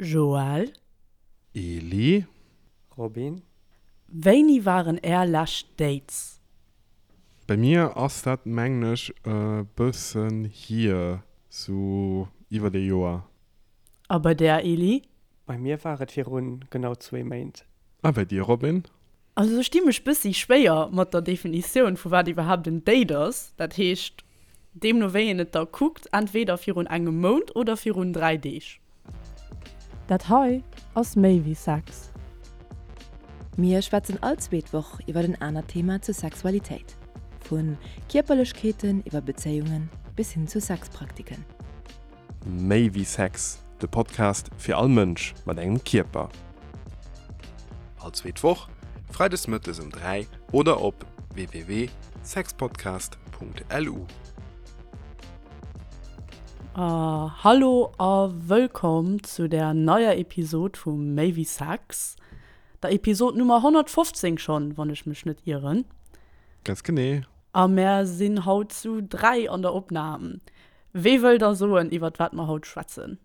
Joël. Eli. Robin. Wéini waren är lescht Dates? Bei mir ass dat mengen ech e bëssen hier, sou iwwert ee Joer. A bei där, Eli? Bei mir war et virun genau zwee Méint. A bei dir, Robin? Also ech di mech bëssi schwéier mat der Definitioun vu wat iwwerhaapt en Date ass. Dat heescht, deemno wéi een et da kuckt, entweder virun engem Mount oder virun 3 Deeg. Dat hei ass méi wéi Sex. Mir schwätzen all zweet Woch iwwer en anert Thema zur Sexualitéit. Vu Kierperlechkeeten iwwer Bezéiungen bis hin zu Sexpraktiken. Méi wéi Sex, de Podcast fir all Mënsch mat engem Kierper. All zweet Woch, freides mëttes um 3 oder op www.sexpodcast.lu. Hallo a wëllkomm zu der neier Episod vu Méi wéi Sex, der Episod Nummer 115 schonn, wann ech mech net ieren. Ganz genee. A mär sinn haut zu 3 an der Opnam. Wee wëll da soen, iwwert wat mer haut schwätzen?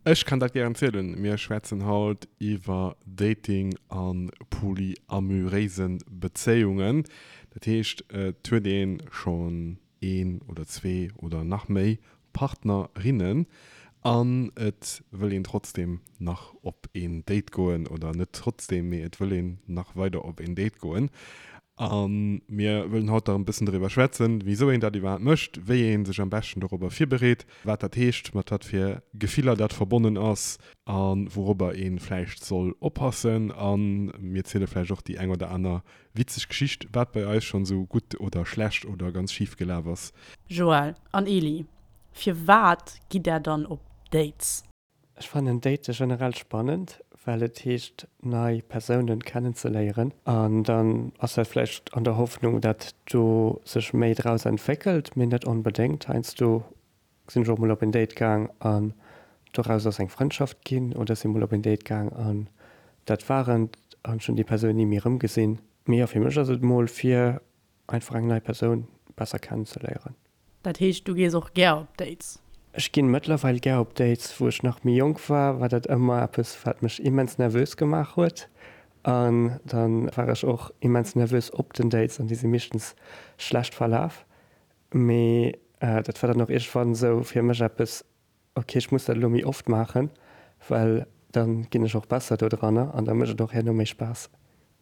Ech kann dat gären zielen. Mir schwätzen haut iwwer Dating a polyamuréise Bezéiungen. Dat heescht, et huet ee schonn een oder zwee oder nach méi Partnerinnen an et wëll een trotzdeem nach op een Date goen, oder net trotzdeem, mee et wëll een nach weider op een Date goen. A mir wëllen haut nach e bëssen doriwwer schwätzen, wisou een dat iwwerhaapt mécht, wéi ee sech am beschten dorobber virbereet, wat dat heescht, mat wat fir Gefiller dat verbonnen ass a wourobber ee vläicht soll oppassen. A mir ziele vläicht och déi eng oder aner witzeg Geschicht, wat bei eis schonn esou gutt oder schlecht oder ganz schif gelaf ass. Joël an Eli, firwat gitt där dann op Dates? Ech fannen Date generell spannend, well et heescht nei Persounen kennenzeléieren an dann ass dat vläicht an der Hoffnung dat do sech méi draus entwéckelt, mee net onbedéngt. Heiansdo sinn ech och mol op en Date gaang an doraus ass eng Frëndschaft ginn oder ech si mol op en Date gaang an dat war et an ech hunn déi Persoun ni méi erëmgesinn. Mee jo, fir mech ass et mol fir einfach eng nei Persoun besser kennenzeléieren. Dat heescht, du gees och gär op Dates? Ech ginn mëttlerweil gär op Dates. Wou ech nach méi jonk war, war dat ëmmer eppes, wat mech immens nervös gemaach huet. An dann war ech och immens nervös op den Dates an déi si meeschtens schlecht verlaf. Mee dat war dann och iergendwann esou fir mech eppes, Ok, ech muss dat elo méi oft maachen, well dann ginn ech och besser do dranner an da mécht et och herno méi Spaass.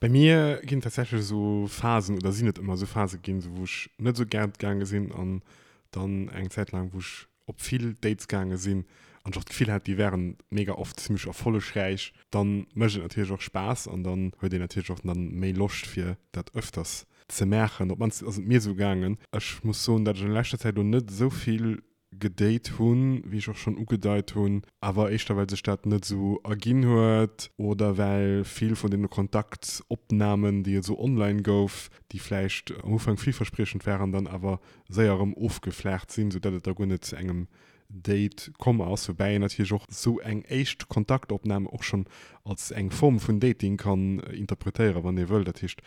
Bei mir ginn tatsächlech esou Phasen oder sinn et ëmmer esou Phase ginn, esou wou ech net esou gär gaange sinn an dann eng Zäit laang wou ech op vill Dates gaange sinn an ech och d'Gefill hat déi wären mega oft zimmlech erfollegräich. Dann mécht et natierlech och Spaass an dann huet een natierlech och dann méi Loscht fir dat ëfters ze maachen. Op d'mannst ass et mir esou gaangen. Ech muss soen, dat ech an leschter Zäit elo net esou vill gedate hunn, wéi ech och schonn ugedeit hunn, awer éischter well sech dat net esou erginn huet oder well vill vun deene Kontaktopnamen, déi et esou online gouf, déi vläicht am Ufank villverspriechend waren, dann awer séier erëm ofgeflaacht sinn, soudatt et da guer net zu engem Date komm ass. Woubäi een natierlech och esou eng éischt Kontaktopnam och schonn als eng Form vun Dating kann interpretéieren, wann ee wëll. Dat heescht,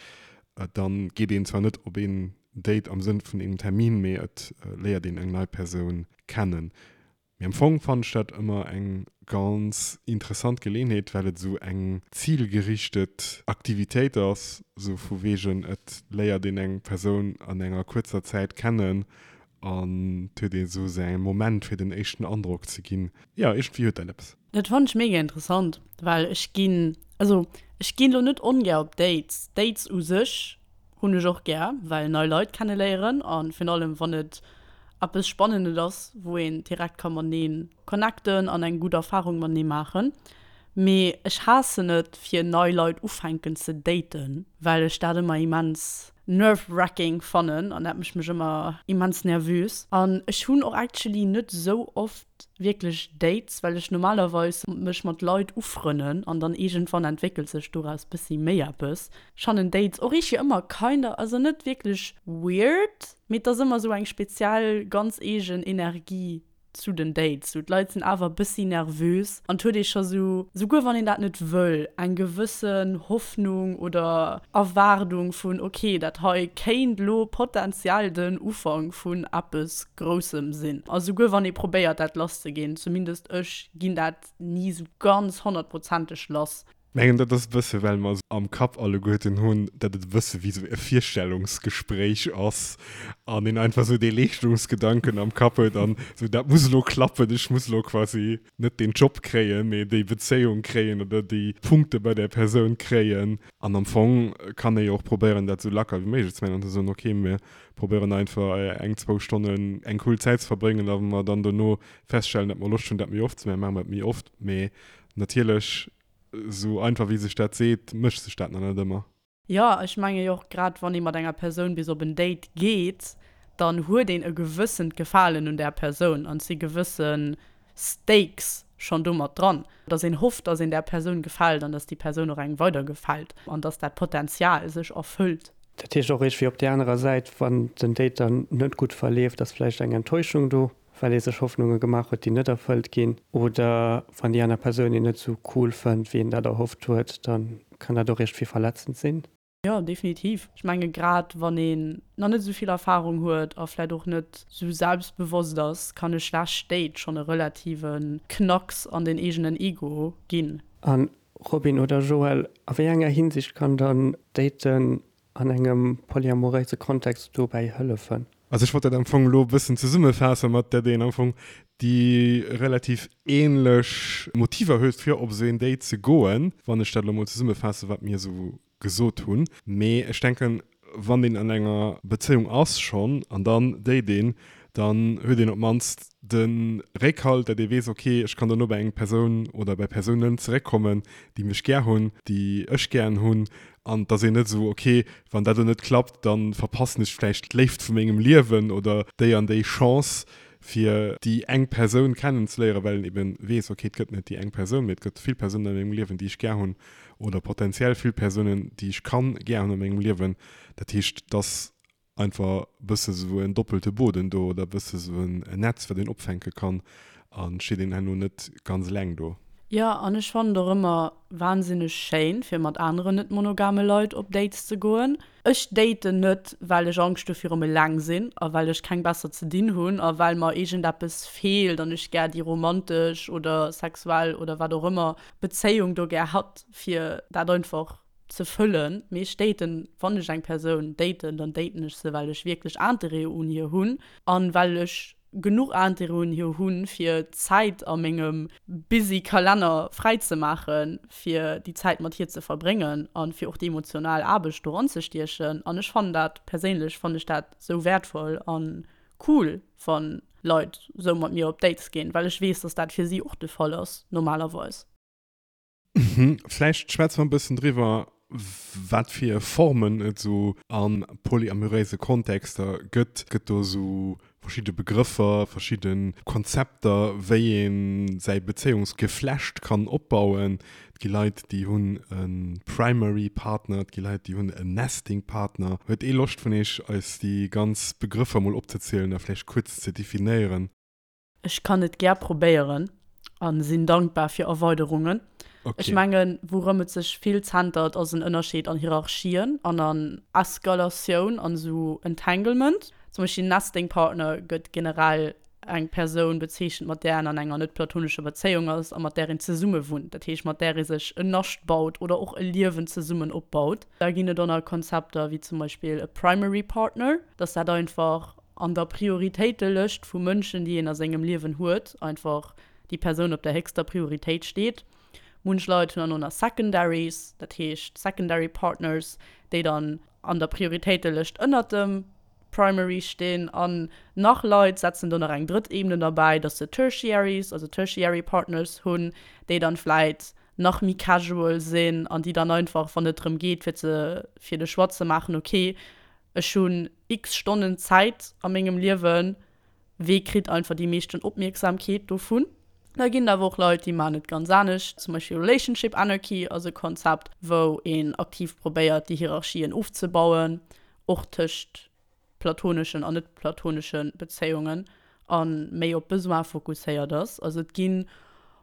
dann geet een zwar net op een Date am Sënn vun engem Termin, mee et léiert een eng nei Persoun kennen. Mee am Fong fannen ech dat ëmmer eng ganz interessant Geleenheet, well et esou eng zilgerichtet Aktivitéit ass, esou vu wegen et léiert een eng Persoun an enger kuerzer Zäit kennen an et huet ee esou säi Moment fir den éischten Androck ze ginn. Jo, iergendwéi huet dat eppes. Dat fannen ech mega interessant, well ech ginn, also ech ginn lo net ongär op Dates. Dates u sech hunn ech och gär, well nei Leit kenneléieren a virun allem wann et eppes Spannendes ass, wou een direkt ka matenee connecten an eng gutt Erfarung matenee maachen. Mee ech haassen et fir nei Leit ufänken ze daten, well ech dat ëmmer immens nerve-wracking fannen an dat mécht mech ëmmer immens nervös. An ech hunn och actually net esou oft wierklech Dates, well ech normalerweis mech mat Leit ufrënnen an dann iergendwann entwéckelt sech doraus bëssi méi eppes. Ech fannen Dates och iergendwéi ëmmer kinder, also net wierklech weird, mee et ass ëmmer esou eng speziell ganz eegen Energie. Zu den Dates, sou d'Leit sinn awer e bëssi nervös an et huet ee scho sou, souguer wann een dat net wëll, eng gewëssen Hoffnung oder Erwaardung vun, ok, dat hei kéint lo potenziell den Ufank vun eppes Groussem sinn. A souguer wann ee probéiert dat lass ze ginn, zumindest ech ginn dat ni sou ganz honnertprozenteg lass. Mengen dat ass e bësse well mer am Kapp alleguerten hunn, dat et e bësse wéi sou e Virstellungsgespréich ass an een einfach sou dee Leeschtungsgedanken am Kapp huet an sou dat muss elo klappen, ech muss elo quasi net deen Job kréien, mee déi Bezéiung kréien oder déi Punkte bei där Persoun kréien. An am Fong kann ee jo och probéieren dat sou lacker wéi méiglech ze maachen an ze soen, ok mir probéieren einfach eng, zwou Stonnen eng cool Zäit ze verbréngen a wa mer dann dono feststellen, dat mer Loscht hunn dat méi oft ze maachen, maache mer et méi oft. Mee natierlech Esou einfach wéi sech dat seet, mécht sech dat nach net ëmmer. Jo, ech menge jo och grad wann ee mat enger Persoun bis op en Date geet, dann huet een e gewëssent Gefalen un där Persoun an et si gewësse Stakes schonn do mat dran, dass een hofft, dass een där Persoun gefält an dass déi Persoun och engem weider gefält an dass dat Potenzial sech erfëllt. Dat heescht och iergendwéi op där anerer Säit, wann den Date dann net gutt verleeft, ass vläicht eng Enttäuschung do. well ee sech Hoffnunge gemaach huet, déi net erfëllt ginn, oder wann déi aner Persoun een net esou cool fënnt, wéi een dat erhofft huet, da kann dat och iergendwéi verletzend sinn. Jo, definitiv. Ech menge grad wann een nach net esou vill Erfarung huet a vläit och net esou selbstbewosst ass, kann e schlecht Date schonn e relative Knacks an den eegenen Ego ginn. A Robin oder Joël, a wéi enger Hinsicht kann dann Daten an engem polyamoréise Kontext dobäi hëllefen? Also ech wollt dat am Fong elo e bëssen zesummefaassen, mat dat een am Fong déi relativ ähnlech Motiver huet fir op esou een Date ze goen, wann ech dat elo mol zesummefaassen, wat mir esou gesot hunn. Mee ech denken, wann een an enger Bezéiung ass schonn an dann date een, dann huet een op d'mannst de Réckhalt, dat ee weess, ok, ech kann dono bei eng Persoun oder bei Persounen zeréckkommen, déi mech gär hunn, déi ech gären hunn, an et ass een net esou, ok, wann dat elo net klappt, da verpassen ech vläicht d'Léift vu mengem Liewen oder déi an déi Chance, fir déi eng Persoun kennenzeléieren, well een eben weess, ok, et gëtt net déi eng Persoun, mee et gëtt vill Persounen a mengem Liewen, déi ech gär hunn oder potenziell vill Persounen, déi ech kann gär hunn a mengem Liewen. Dat heescht, dass einfach e bësse sou en doppelte Boden do oder e bësse sou en Netz, wat een opfänke kann a steet een herno net ganz eleng do. Jo, an ech fannen et och ëmmer wahnsinneg schéin, fir mat aneren net monogame Leit op Dates ze goen. Ech daten net, well ech Angscht hu virum eleng sinn a well ech keng besser ze dinn hunn a well mer iergendeppes feelt an ech gär déi romantesch oder sexuell oder wat och ëmmer Bezéiung do gär hatt, fir dat einfach ze fëllen, mee ech daten, wann ech eng Persoun daten, dann daten ech se well ech wierklech Interêt un hir hunn an well ech genuch Interêt un hir hunn fir Zäit a mengem busy Kalenner fräi ze maachen fir déi Zäit mat hir ze verbréngen an fir och déi emotional Aarbecht do ranzestiechen an ech fannen dat, perséinlech fannen ech dat sou wäertvoll an cool wann Leit sou mat mir op Dates ginn, well ech weess dass dat fir si och de Fall ass normalerweis. Vläicht schwätze mer e bëssen driwwer, wat fir Formen et esou a polyamoréise Kontexter gëtt. Gëtt do esou verschidde Begrëffer, verschidde Konzepter, wéi ee säi Bezéiungsgeflecht kann opbauen? Et gi Leit, déi hunn e Primary Partner, et gi Leit, déi hunn en Nesting Partner. Huet ee Loscht vun iech, eis déi ganz Begrëffer mol opzezielen a vläicht kuerz ze definéieren? Ech kann et gär probéieren a sinn dankbar fir Erweiderungen. Okay. Ech mengen, wourëm et sech vill zentert, ass en Ënnerscheed an Hierarchien an an Eskalatioun an esou Entanglement. Zum Beispill Nesting Partner gëtt generell eng Persoun bezeechent, mat där een an enger net-platonescher Bezéiung ass a mat där een zesumme wunnt, dat heescht mat där ee sech en Nascht baut oder och e Liewen zesummen opbaut. Da ginn et och nach Konzepter wéi zum Beispill e Primary Partner, dass dat einfach an der Prioritéitelëscht vu Mënschen, déi een a sengem Liewen huet, einfach déi Persoun op der héchster Prioritéit steet. Munch Leit hunn dann och nach Secondaries, dat heescht Secondary Partners, déi dann an der Prioritéitelëscht ënnert dem Primary stinn. An nach Leit setzen do nach eng drëtt Ebene derbäi, dass se Tertiaries, also Tertiary Partners hunn, déi dann vläit nach méi casual sinn an déi dann einfach, wann et drëm geet, fir ze, fir de Choix ze maachen, okay, Ech hunn x Stonnen Zäit a mengem Liewen, wee kritt einfach déi meeschten Opmierksamkeet dovun? Da ginn et awer och Leit, déi maachen et ganz anescht. Zum Beispill Relationship Anarchy ass e Konzept, wou een aktiv probéiert, déi Hierarchien ofzebauen, och tëscht platoneschen an net platonesche Bezéiungen. A méi op Besoin fokusséiert ass. Also et ginn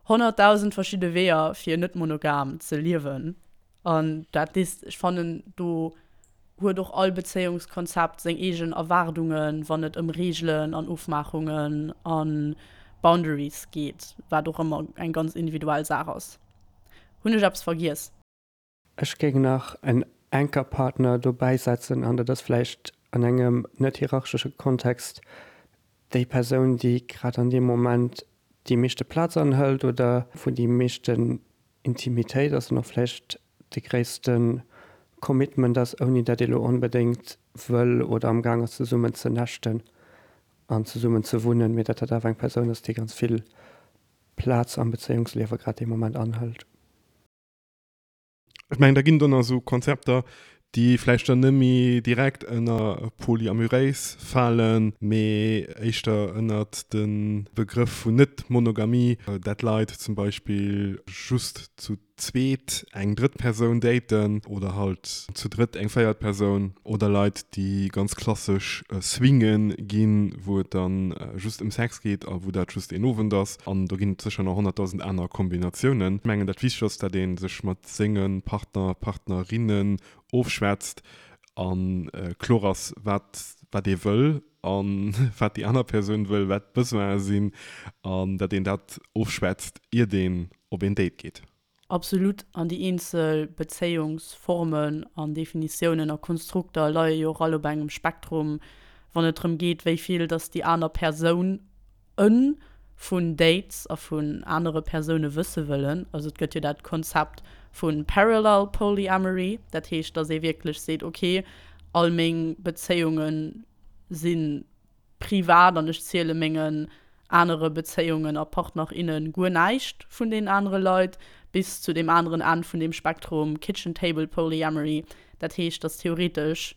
100.000 verschidde Weeër fir net monogam ze liewen. An dat is, ech fannen, do huet och all Bezéiungskonzept seng eegen Erwaardungen, wann et ëm Reegelen an Ofmaachungen a Boundaries geet, wat och ëmmer eng ganz individuell Saach ass. Hunn ech eppes vergiess? Ech géing nach en Anchor-Partner dobäi setzen, an dat ass vläicht an engem net hierarchesche Kontext déi Persoun, déi grad an deem Moment déi meeschte Plaz anhëlt oder wou déi meeschten Intimitéit ass an och vläicht de gréisste Commitment ass, ouni dat ee lo onbedéngt wëll oder am Gaang ass zesummen ze näschten an zesummen ze wunnen, mee dat dat awer eng Persoun ass, déi ganz vill Plaz am Bezéiungsliewe grad dee Moment anhëlt. Ech mengen, da ginn do nach esou Konzepter, déi vläicht dann net méi direkt ënner polyamuréis falen, mee éischter ënnert de Begrëff vun Net-Monogamie, dat Leit zum Beispill just zu zweet eng drëtt Persoun daten oder halt zu drëtt eng véiert Persoun oder Leit, déi ganz klassesch swinge ginn, wou et dann just ëm Sex geet a wou dat just een Owend ass. An do ginn et sécher nach 100.000 aner Kombinatiounen. Ech mengen, dat Wichtegst ass, dat ee sech mat senge Partner, Partnerinnen ofschwätzt a kloer ass, wat wat ee wëll a wat déi aner Persoun wëll, wat d'Besoine sinn an dat een dat ofschwätzt, iert een op een Date geet. Absolut, an déi eenzel Bezéiungsformen an Definitiounen a Konstrukter leie jo och all op engem Spektrum, wann et drëm geet, wéi vill dass déi aner Persoun, en, vun Dates a vun anere Persoune wësse wëllen. Also et gëtt jo dat Konzept vu Parallel Polyamory, dat heescht, dass ee wierklech seet, ok, all meng Bezéiunge si privat an ech ziele mengen anere Bezéiungen a Partner, inne guer näischt vun deenen anere Leit, bis zu deem aneren Enn vun deem Spektrum, Kitchen Table Polyamory, dat heescht, dass theoretesch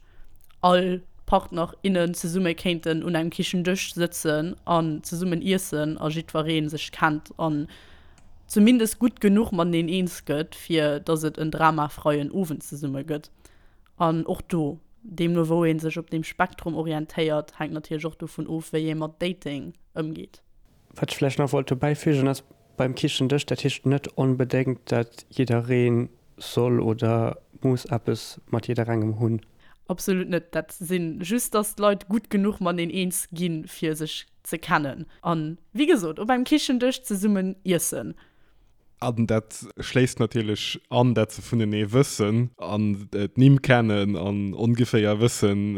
all Partner, innen zesumme kéinten un engem Kichendësch sëtzen an zesummen iessen a jiddweree sech kennt an zumindest gutt genuch mateneen eens gëtt, fir dass et en dramafreien Owend zesumme gëtt. An och do, deemno wou ee sech op deem Spektrum orientéiert, hänkt natierlech och dovun of, wéi ee mat Dating ëmgeet. Wat ech vläicht nach wollt dobäi fügen ass, beim Kichendësch, dat heescht net onbedéngt, dat jidderee soll oder muss eppes mat jidderengem hunn. Absolut net. Dat si just, dass d'Leit gutt genuch mateneen eens ginn, fir sech ze kennen. An, wéi gesot, op engem Kichendësch zesummen iessen. An dat schléisst natierlech an, dat se vunenee wëssen an d'Nimm kennen an ongeféier wëssen,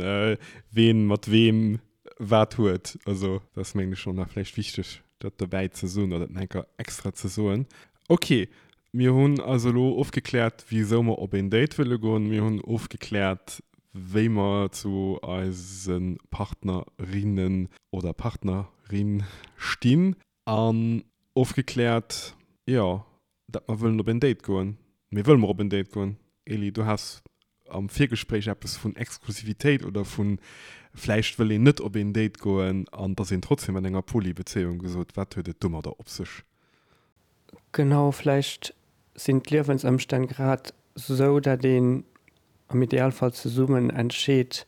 ween mat weem wat huet. Also dat ass, mengen ech, och nach vläicht wichteg, dat dobäi ze soen oder dat nach eng Kéier extra ze soen. Ok, mir hunn also elo ofgekläert, wisou mer op een Date wëlle goen. Mir hunn ofgekläert, wéi mer zu eise Partnerinnen oder Partnerin stinn. An ofgekläert, jo, dat mer wëllen op een Date goen. Mee wëlle mer op een Date goen? Eli, du has am Virgespréich eppes vun Exklusivitéit oder vu vläicht wëll een net op een Date goen an et ass een trotzdem an enger Poly-Bezéiung gesot. Wat huet et domadder op sech? Genau, vläicht sinn d'Liewensëmstänn grad sou, dat een am Idealfall zesummen entscheet,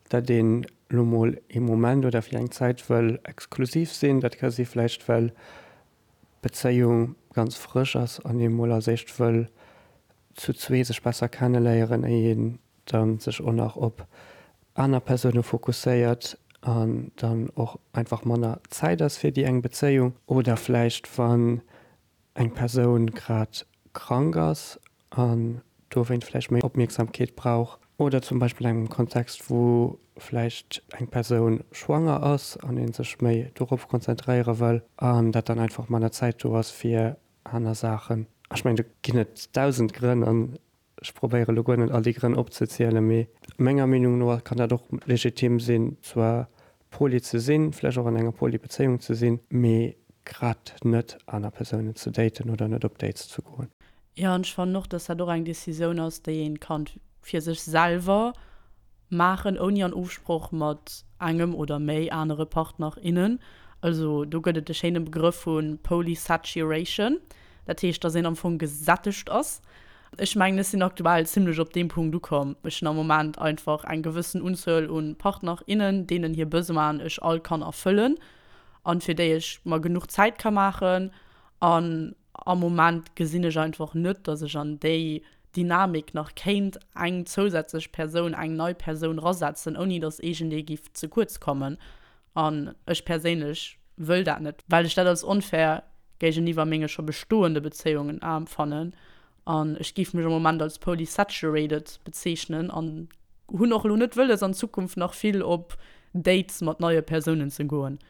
dat een lo mol ee Moment oder fir eng Zäit wëll exklusiv sinn. Dat ka si vläicht well d'Bezéiung ganz frësch ass an ee mol als éischt wëll zu zwee sech besser kenneléieren, éier een dann sech och nach op aner Persoune fokusséiert an dann och einfach manner Zäit ass fir déi eng Bezéiung. Oder vläicht wann eng Persoun grad krank ass an dowéint vläicht méi Opmierksamkeet brauch. Oder zum Beispill engem Kontext, wou vläicht eng Persoun schwanger ass an ee sech méi dorop konzentréiere wëll an dat dann einfach manner Zäit do ass fir aner Saachen. Ech mengen, do ginn et 1000 Grënn an Ech probéiere lo guer net all déi Grënn opzezielen, mee menger Meenung no kann dat och legitim sinn, zwar poly ze sinn, vläicht och an enger poly Bezéiung ze sinn, mee grad net aner Persounen ze daten oder net op Dates ze goen. Jo, an ech fannen och, dass dat och eng Decisioun ass, déi een kann fir sech selwer maachen, ouni an Ofsproch mat engem oder méi anere Partner, innen. Also do gëtt et de schéine Begrëff vu Polysaturation, dat heescht, dass een am Fong gesättegt ass. Ech mengen, ech sinn aktuell zimlech op deem Punkt ukomm. Ech hunn am Moment einfach eng gewëssen Unzuel u Partner, innen, deenen hir Besoinen ech all kann erfëllen. an fir déi ech mer genuch Zäit ka maachen. An am Moment gesinn ech einfach net, dass ech an déi Dynamik nach kéint eng zousätzlech Persoun, eng nei Persoun rasetzen, ouni dass iergendee giff ze kuerz kommen. An ech perséinlech wëll dat net, well ech dat als onfair géigeniwwer menge scho bestoende Bezéiungen empfannen. An ech géif mech am Moment als polysaturated bezeechnen an hunn och elo net wëlles an Zukunft nach vill op Dates mat neie Persounen ze goen.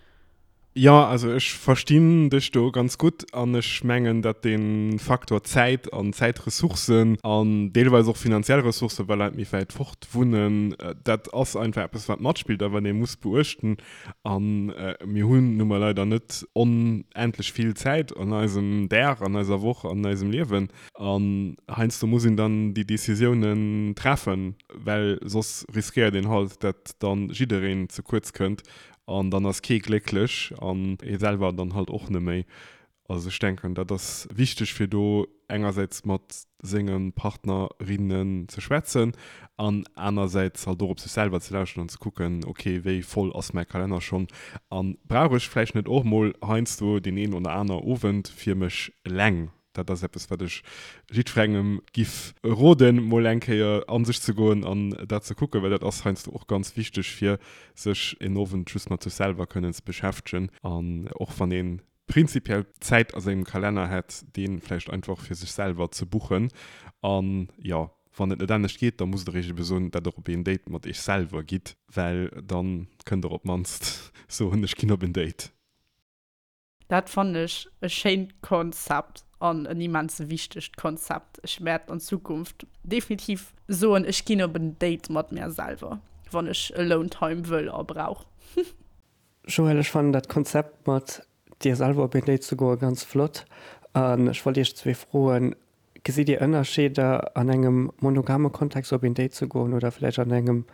Jo, also ech verstinn dech do ganz gutt an ech mengen, datt dee Faktor Zäit an Zäitressourcen an deelweis och finanziell Ressourcen, well Leit méi wäit fort wunnen, dat ass einfach eppes wat matspillt a wat ee muss beuechten. A mir hunn nu mol leider net onendlech vill Zäit an eisem Dag, an eiser Woch, an eisem Liewen. An heiansdo muss een dann déi Decisiounen treffen, well soss riskéiert een halt, datt dann jiddereen ze kuerz kënnt An dann ass kee glécklech an ee selwer dann halt och neméi. Also ech denken, dat ass wichteg fir do engersäits mat senge Partnerinnen ze schwätzen an anersäits halt och op sech selwer ze lauschteren an ze kucken, ok, wéi voll ass mäi Kalenner schonn a brauch ech vläicht net och mol heiansdo deen een oder aner Owend fir mech eleng. Dat ass eppes, wat ech jiddwerengem giff roden, mol eng Kéier a sech ze goen an dat ze kucken, well dat ass heiansdo och ganz wichteg, fir sech en Owend just mat sech selwer kënnen ze beschäftegen. An och wann ee prinzipiell Zäit a sengem Kalenner hätt, dee vläicht einfach fir sech selwer ze buchen. An jo, wann et net anescht geet, da musst der iech ebe soen, dat der op een Date mat iech selwer gitt, well da kënnt der op d'mannst soen, ech ginn op en Date. Dat fannen ech e schéint Konzept an en immens wichtegt Konzept. Ech wäert an Zukunft definitiv soen, ech ginn op en Date mat mär selwer, wann ech Alone Time wëll a brauch. Joël, ech fannen dat Konzept mat dir selwer op een Date ze goe ganz flott an ech wollt iech zwee froen, Gesitt dir Ënnerscheeder an engem monogame Kontext op een Date ze goen oder vläicht an engem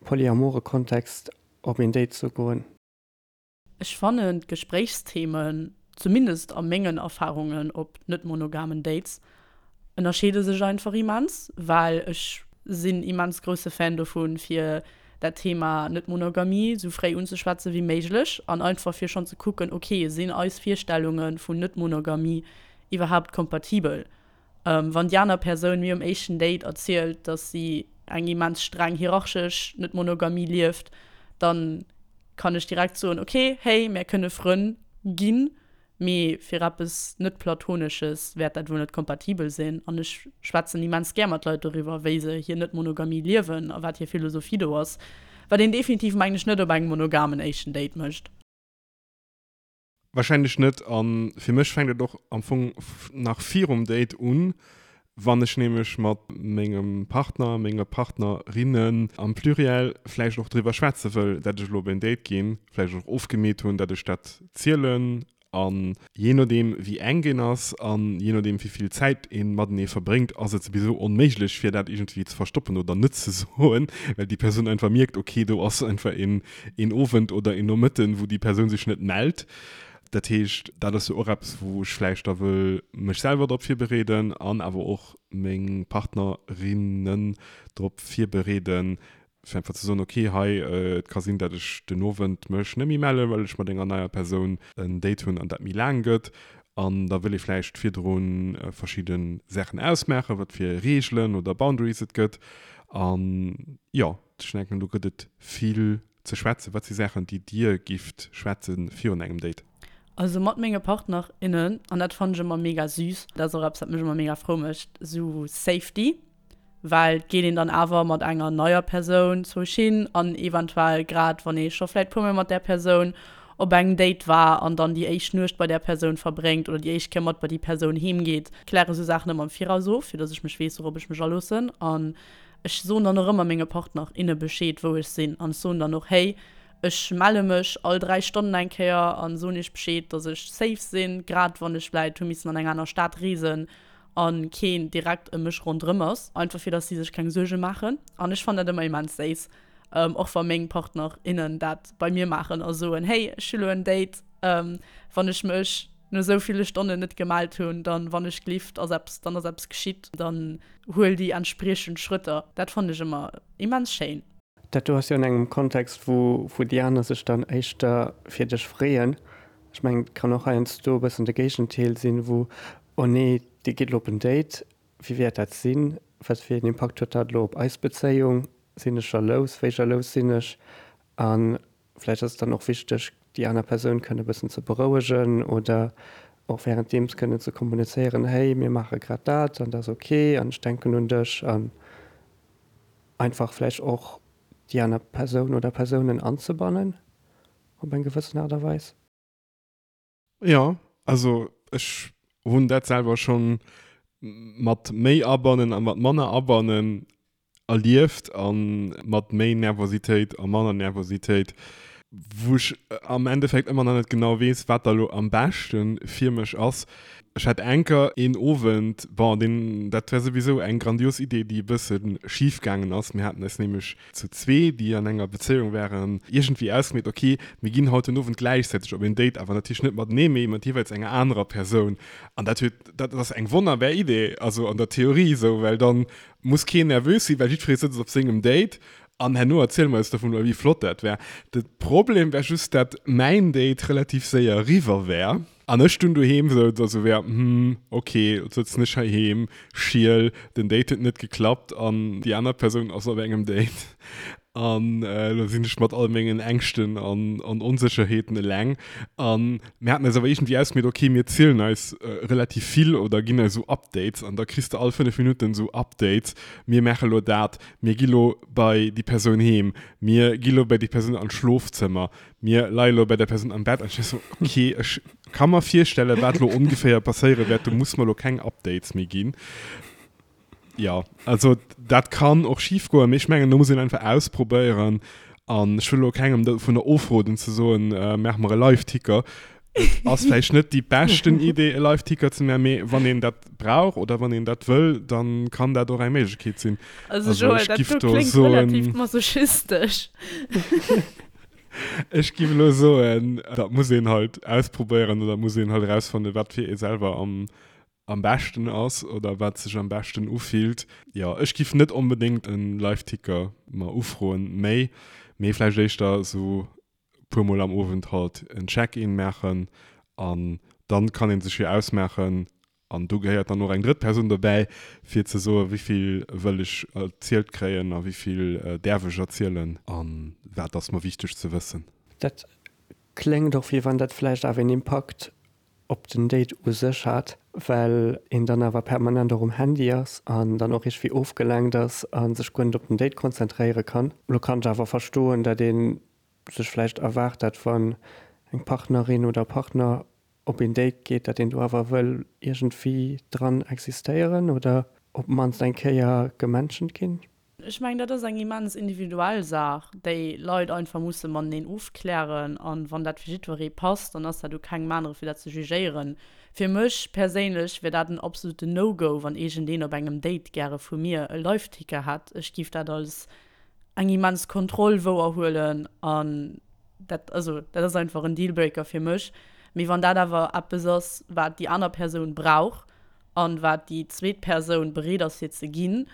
polyamore Kontext op een Date ze goen? Ech fannen d'Gespréichsthemen, zumindest a mengen Erfahrungen op net-monogamen Dates, ënnerscheede sech einfach immens, well ech sinn immens grousse Fan dovun, fir dat Thema Net-Monogamie sou fréi unzeschwätze wéi méiglech an einfach fir schonn ze kucken, ok, sinn eis Virstellunge vun Net-Monogamie iwwerhaapt kompatibel? Wann déi aner Persoun mir um éischten Date erzielt, dass si eng immens streng hierarchesch Net-Monogamie lieft, dann kann ech direkt soen, ok, hey, mär kënne Frënn ginn, mee fir eppes net-Platonesches wäert dat wuel net kompatibel sinn. An ech schwätzen immens gär mat Leit doriwwer, wéi se hir Net-Monogamie liewen a wat hir Philosophie do ass, wat een definitiv, mengen ech, net op engem monogamen éischten Date mécht. Wahrscheinlech net. A fir mech fänkt et och am Fong nach virum Date un, wann ech nämlech mat mengem Partner, menge Partnerinnen am Pluriel vläicht och driwwer schwätze wëll, dat ech elo op en Date ginn, vläicht och ofgemeet hunn, dat ech dat zielen. An jee nodeem wéi enk een ass an jee nodeem wéi vill Zäit ee matenee verbréngt, ass et souwisou onméiglech fir dat iergendwéi ze verstoppen oder net ze soen, well déi Persoun einfach mierkt, ok, do ass einfach een een Owend oder een Nomëtten, wou déi Persoun sech net mellt. Dat heescht, dat ass jo och eppes, wou ech vläicht da wëll mech selwer drop virbereeden an awer och meng Partnerinnen drop virbereeden, fir einfach ze soen, okay, hei, et ka sinn, datt ech den Owend mech net méi mellen, well ech mat enger neier Persoun en Date hunn an dat méi laang gëtt. An da wëll ee vläicht virdru verschidde Saachen ausmaachen, wat fir Reegelen oder Boundaries et gëtt. An jo. Ech denken, do gëtt et vill ze schwätzen. Wat si Saachen, déi Dir gifft schwätze virun engem Date? Also mat menge Partner, innen, an dat fannen ech ëmmer mega süß, dat ass och eppes wat mech ëmmer mega frou mécht, sou Safety, well et geet een dann awer mat enger neier Persoun zoueg hin an eventuell grad wann ee scho vläit puer mol mat där Persoun op engem Date war an dann déi éischt Nuecht bei där Persoun verbréngt oder déi éischt Kéier mat bei déi Persoun heem geet, kläre sou Saachen ëmmer am Viraus of, fir dass ech mech weess wourop ech mech aloossen an Ech soen dann och ëmmer menge Partner, inne Bescheed, wou ech sinn. An ech soen dann och, Hey, ech melle mech all 3 Stonnen eng Kéier a soen iech Bescheed, dass ech safe sinn, grad wann ech vläit hu missen an eng aner Stad reesen a keen direkt ëm mech ronderëm ass. Einfach fir dass si sech keng Suerge maachen. An ech fannen dat ëmmer immens séiss, och wa meng Partner, innen dat bei mir maachen a soen, Hey, ech hu lo en Date, wann ech mech no esou ville Stonnen net gemellt hunn, dann, wann ech glift, ass eppes, dann ass eppes geschitt, dann huel déi entspriechend Schrëtter. Dat fannen ech ëmmer immens schéin. Dat do ass jo an engem Kontext, wou wou déi aner sech dann éischter fir dech freeën. Ech mengen, et kann och heiansdo e bëssen de Géigendeel sinn, wou, oh nee, dee geet elo op en Date, wéi wäert dat sinn, wat fir een Impakt huet dat elo op eis Bezéiung, sinn ech jalous, wéi jalous sinn ech? A vläicht ass et dann och wichteg, déi aner Persoun kënne e bëssen ze berouegen oder och wärenddeems kënnen ze kommunizéieren, hey, mir maache grad dat an dat ass ok an ech denken un dech an einfach vläicht och déi aner Persoun oder Persounen anzebannen op eng gewëssen Aart a Weis. Jo, also ech hunn dat selwer schonn mat méi Abannen a mat manner Abannen erlieft a mat méi Nervositéit a manner Nervositéit, wou ech am Endeffekt ëmmer nach net genau weess, wat da lo am beschte fir mech ass. Ech hat enker een Owend, bon, deen, dat war souwisou eng grandios Idee, déi e bësse schif gaangen ass. Mir haten eis nämlech zu zwee, déi an enger Bezéiung waren, iergendwéi ausgemeet, ok, mir ginn haut den Owend gläichzäiteg op een Date, awer natierlech net matenee, mee mat jeeweils enger anerer Persoun. An dat huet, dat ass eng wonnerbar Idee, also an der Theorie esou, well dann muss keen nervös sinn, well jiddweree sëtzt op sengem Date an herno erziele mer eis dovun, wéi flott dat war. De Problem war just, dat mäin Date relativ séier eriwwer war. An ech dunn doheem souz a sou wär, hm, ok, lo sëtzen ech heiheem, schiel, den Date huet net geklappt an déi aner Persoun ass op engem Date an elo sinn ech mat all mengen Ängschten an an Onsécherheeten eleng. An mir haten eis awer iergendwéi ausgemeet, ok, mir zielen eis relativ vill oder ginn eis esou Updates an da kriss de all 5 Minutten esou Updates, mir maache lo dat, mir gi lo bei déi Persoun heem, mir gi lo bei déi Persoun an d'Schlofzëmmer, Mir leie lo bei der Persoun am Bett an ech war sou, ok, ech ka mer virstellen, wat lo ongeféier passéiere wäert, do muss mer lo keng Updates méi ginn. Jo, also dat kann och schif goen, mee ech mengen, do muss een einfach ausprobéieren an ech wëll lo kengem dovunner ofroden ze soen, maach mer e Live-Ticker. Et ass vläicht net déi beschten Idee, e Live-Ticker ze maachen, mee wann een dat brauch oder wann een dat wëll, dann kann dat och eng Méiglechkeet sinn. Also Joël, dat do kléngt relativ masochistesch. Ech giff elo soen, dat muss een halt ausprobéieren oder muss een halt erausfannen, wat fir ee selwer am am beschten ass oder wat sech am beschten ufillt. Jo, ech giff net onbedéngt en Live-Ticker mer ufroen méi, mee vläicht éischter esou puer mol am Owend halt en Check-in maachen an dann kann een sech jo ausmaachen, An do gehéiert dann och eng drëtt Persoun dobäi, fir ze soen, wéi vill wëll ech erzielt kréien a wéi vill däerf ech erzielen a wat ass mer wichteg ze wëssen. Dat kléngt och, wéi wann dat vläicht awer een Impakt op den Date u sech hat, well een dann awer permanent och um Handy ass an dann och iergendwéi ofgelenkt ass a sech guer net op den Date konzentréiere kann. Lo kann ech awer verstoen, dat ee sech vläicht erwaart, dat wann eng Partnerin oder Partner op een Date geet, dat een do awer wëll iergendwéi dran existéieren oder op d'mannst eng Kéier gementioned ginn. Ech mengen, dat ass eng immens individuell Saach, déi Leit einfach musse mateneen ofklären. An wann dat fir jiddweree passt, dann ass dat u kengem anere fir dat ze jugéieren. Fir mech perséinlech wier dat en absoluten No-Go, wann iergendeen op engem Date gäre vu mir e Live-Ticker hätt. Ech giff dat als eng immens Kontroll wouerhuelen an dat, also dat ass einfach en Dealbreaker fir mech. Mee wann dat awer eppes ass, wat déi aner Persoun brauch an wat déi zweet Persoun bereet ass fir ze ginn,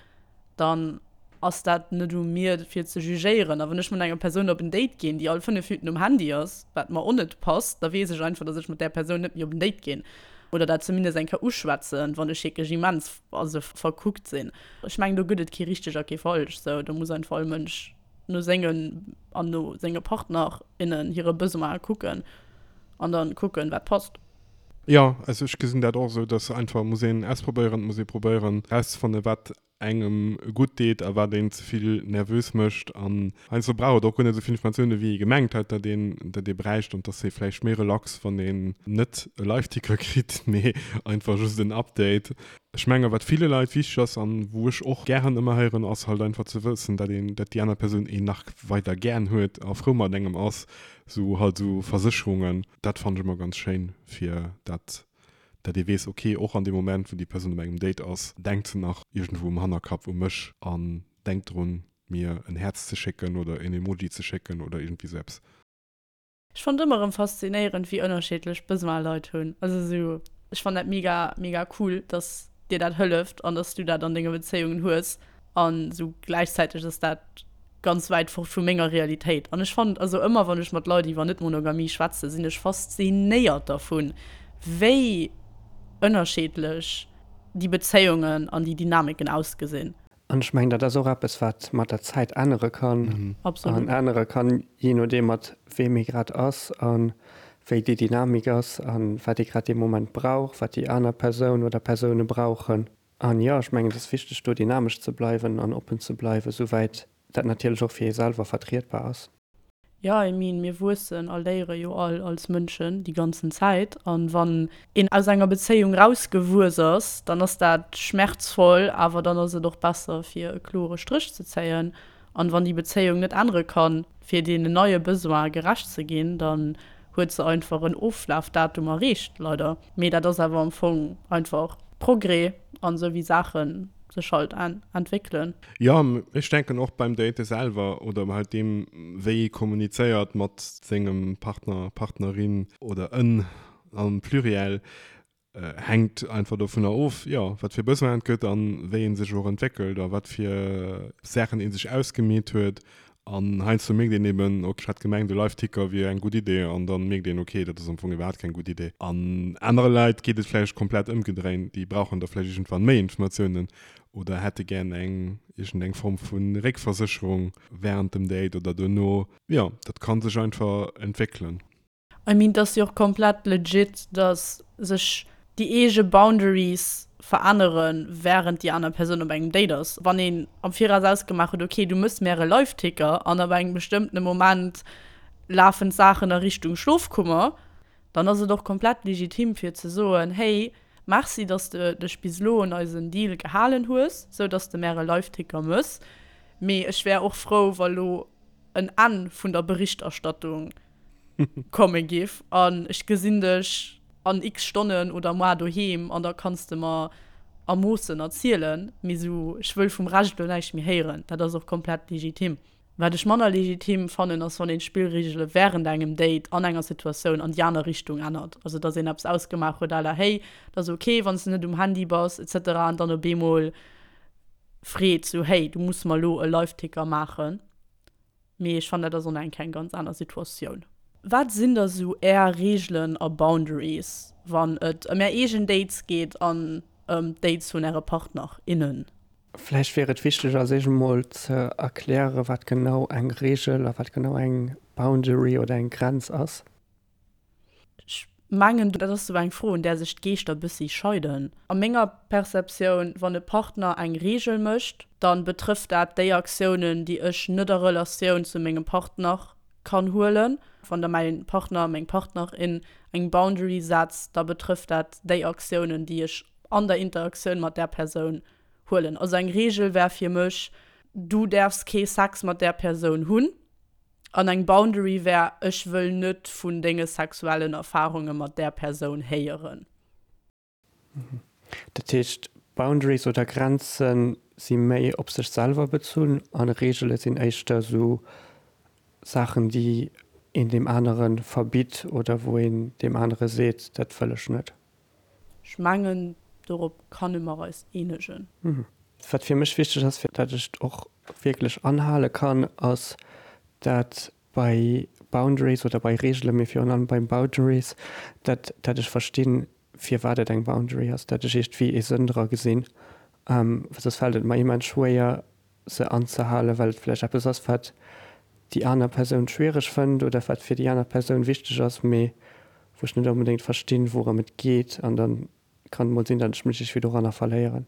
dann ass dat net u mir fir ze jugéieren. A wann ech mat enger Persoun op en Date ginn, déi all 5 Minuten um Handy ass, wat mer och net passt, da weess ech einfach, dass ech mat där Persoun net méi op en Date ginn oder dat zumindest eng Kéier uschwätzen, wann ech wierklech immens, also verkuckt sinn. Ech mengen, do gëtt et kee richteg a kee falsch, sou do muss einfach all Mënsch no sengen an no senge Partner, innen hire Besoine kucken an dann kucken, wat passt. Jo, also ech gesinn dat och esou, dass einfach muss een ausprobéieren, et muss ee probéieren erauszefannen, wat engem gutt deet a wat een ze vill nervös mécht. An heiansdo brauch et och guer net esou vill Informatiounen, wéi ee gemengt hat, datt een datt ee bräicht an et ass ee vläicht méi relax, wann een net e Live-Ticker kritt, mee einfach just en Update. Ech menge wat ville Leit wichteg ass an wou ech och gären ëmmer héieren, ass halt einfach ze wëssen, dat een, dat déi aner Persoun een nach weider gären huet a frou mat engem ass, sou halt sou Versécherungen, dat fannen ech ëmmer ganz schéin, fir dat dat ee weess, ok, och an deem Moment wou déi Persoun op engem Date ass, denkt se nach iergendwou um Hannerkapp u mech an denkt drun mir en Häerz ze schécken oder en Emoji ze schécken oder iergendwéi sou eppes. Ech fannt ëmmer erëm faszinéierend wéi ënnerschiddlech Besoin Leit hunn. Also sou ech fann dat mega mega cool dass dir dat hëlleft an dass du dat an denge Bezéiungen hues an sou gläichzäiteg ass dat. Ganz wäit fort vu menger Realitéit. An ech fannen, also ëmmer wann ech mat Leit iwwer Net-Monogamie schwätzen, sinn ech faszinéiert dervun, wéi ënnerscheedlech déi Bezéiungen an déi Dynamiken ausgesinn. An ech mengen, dat ass och eppes, wat mat der Zäit ännere kann. Absolut. An ännere kann, jee nodeem mat weem ee grad ass a wéi déi Dynamik ass a wat ee grad dee Moment brauch, wat déi aner Persoun oder Persoune brauchen. An jo, ech mengen, et ass wichteg, do dynamesch ze bleiwen an oppen ze bleiwen, souwäit dat natierlech och fir ee selwer vertrietbar ass. Jo, I mean, mir wuessen a léiere jo all als Mënschen déi ganzen Zäit. An wann een aus enger Bezéiung rausgewuess ass, dann ass dat schmerzvoll, awer dann ass et och besser, fir e klore Stréch ze zéien. An wann déi Bezéiung net ännere kann, fir deenen neie Besoine gerecht ze ginn, dann huet se einfach en Oflafdatum erreecht, leider. Mee dat ass awer am Fong einfach Progrès an esou wéi Saache sech halt entwéckelen. Jo, ech denken och beim Date selwer oder halt deem wéi ee kommunizéiert mat sengem Partner, Partnerin oder en am Pluriel, Hänkt einfach dovunner of, jo, wat fir Besoinen et gëtt an wéi ee sech och entwéckelt a wat fir Saachen ee sech ausgemeet huet. An heiansdo mierkt een eben, ok, ech hat gemengt, e Live-Ticker wier eng gutt Idee an dann mierkt een, ok, dat ass am Fong iwwerhaapt keng gutt Idee. An anere Leit geet et vläicht komplett ëmgedréint, déi brauchen da vläicht iergendwann méi Informatiounen oder hätte gär eng iergendeng Form vu Réckversécherung wärend dem Date oder duerno. Jo, dat ka sech einfach entwéckelen. I mean, et ass jo och komplett legit, dass sech déi eege Boundaries verännere wärend déi aner Persoun op engem Date ass. Wann een am Viraus ausgemaach huet, ok, du mëss mär e Live-Ticker an ab engem bestëmmtene Moment lafen d'Saachen a Richtung Schlofkummer, dann ass et och komplett legitim fir ze soen, hey, merci, dass de dech bis elo un eisen Deal gehalen hues, sou dass de mär e Live-Ticker mëss, mee ech wär och frou, wa lo en Enn vun der Berichterstattung komme giff an ech gesinn dech an x Stonnen oder moar doheem an da kanns de mer a Moossen erzielen, mee sou ech wëll vum Rescht elo näischt méi héieren. Dat ass och komplett legitim. Wat ech manner legitim fannen ass wann een d'Spillregele wärend engem Date an enger Situatioun an déi aner Richtung ännert. Also dass een eppes ausgemaach huet à la hey, et ass ok wann s de net um Handy bass etc an dann op eemol freet sou hey, du muss mer elo e Live-Ticker maachen. Mee ech fannen, dat ass och nach eng Kéier eng ganz aner Situatioun. Wat sinn da sou Är Reegelen a Boundaries, wann et ëm Är eegen Dates geet an ëm d'Dates vun Äre Partner, innen? Vläicht wier et wichteg als éischt emol ze erklären, wat genau eng Reegel a wat genau eng Boundary oder eng Grenz ass. Ech mengen, dat ass sou eng Fro, un där sech d'Geeschter bëssi scheiden. A menger Perceptioun, wann e Partner eng Reegel mécht, da betrëfft dat déi Aktiounen, déi ech net a Relatioun zu mengem Partner kann huelen. Wann da mäi Partner, meng Partnerin eng Boundary setzt, da betrëfft dat déi Aktiounen, déi ech an der Interaktioun mat där Persoun huelen. Also eng Reegel wär fir mech, Du däerfs kee Sex mat där Persoun hunn. An eng Boundary wär, ech wëll net vun denge sexuellen Erfarunge mat där Persoun héieren. Dat heescht, Boundaries oder Grenze si méi op sech selwer bezunn a Reegele sinn éischter esou Saachen, déi een deem anere verbitt oder wou een deem anere seet, dat wëll ech net. Ech mengen, dorop kanne mer eis eenegen. Wat fir mech wichteg ass, fir dat ech et och wierklech anhale kann, ass, dat bei Boundaries oder bei Reegelen, mee virun allem bei Boundaries, dat dat ech verstinn, firwat et eng Boundary ass, dat ech iergendwéi ee Sënn dra gesinn. Well soss fält et mer immens schwéier, se anzehalen, well et vläicht eppes ass, wat déi aner Persoun schwiereg fënnt oder wat fir déi aner Persoun wichteg ass, mee wou ech net onbedéngt verstinn, wourëm et geet. An da kann et mol sinn, datt ech mech iergendwéi doranner verléieren.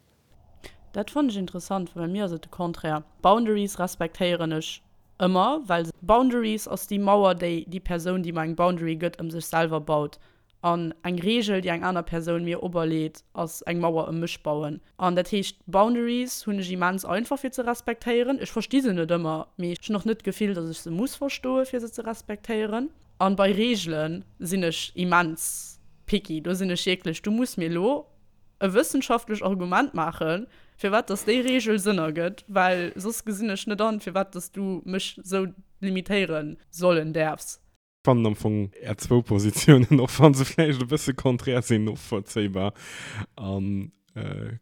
Dat fannen ech interessant, well bei mir ass et de Contraire. Boundaries respektéieren ech ëmmer, well Boundaries ass déi Mauer, déi déi Persoun, déi mer eng Boundary gëtt, ëm sech selwer baut. An eng Reegel, déi eng aner Persoun mir operleet, ass eng Mauer ëm mech bauen. An dat heescht, Boundaries hunn ech immens einfach fir ze respektéieren. Ech versti se net ëmmer, mee ech hunn och net d'Gefill, datt ech se muss verstoe fir se ze respektéieren. An bei Reegele sinn ech immens picky. Do sinn ech wierklech, du muss mir elo e wëssenschaftlech Argument maachen, firwat datt déi Reegel Sënn ergëtt, well soss gesinn ech net an, firwat datt du mech sou limitéiere sollen däerfs. Fannen am Fong är zwou Positiounen, och wann se vläicht e bësse konträr sinn, novollzéibar. An.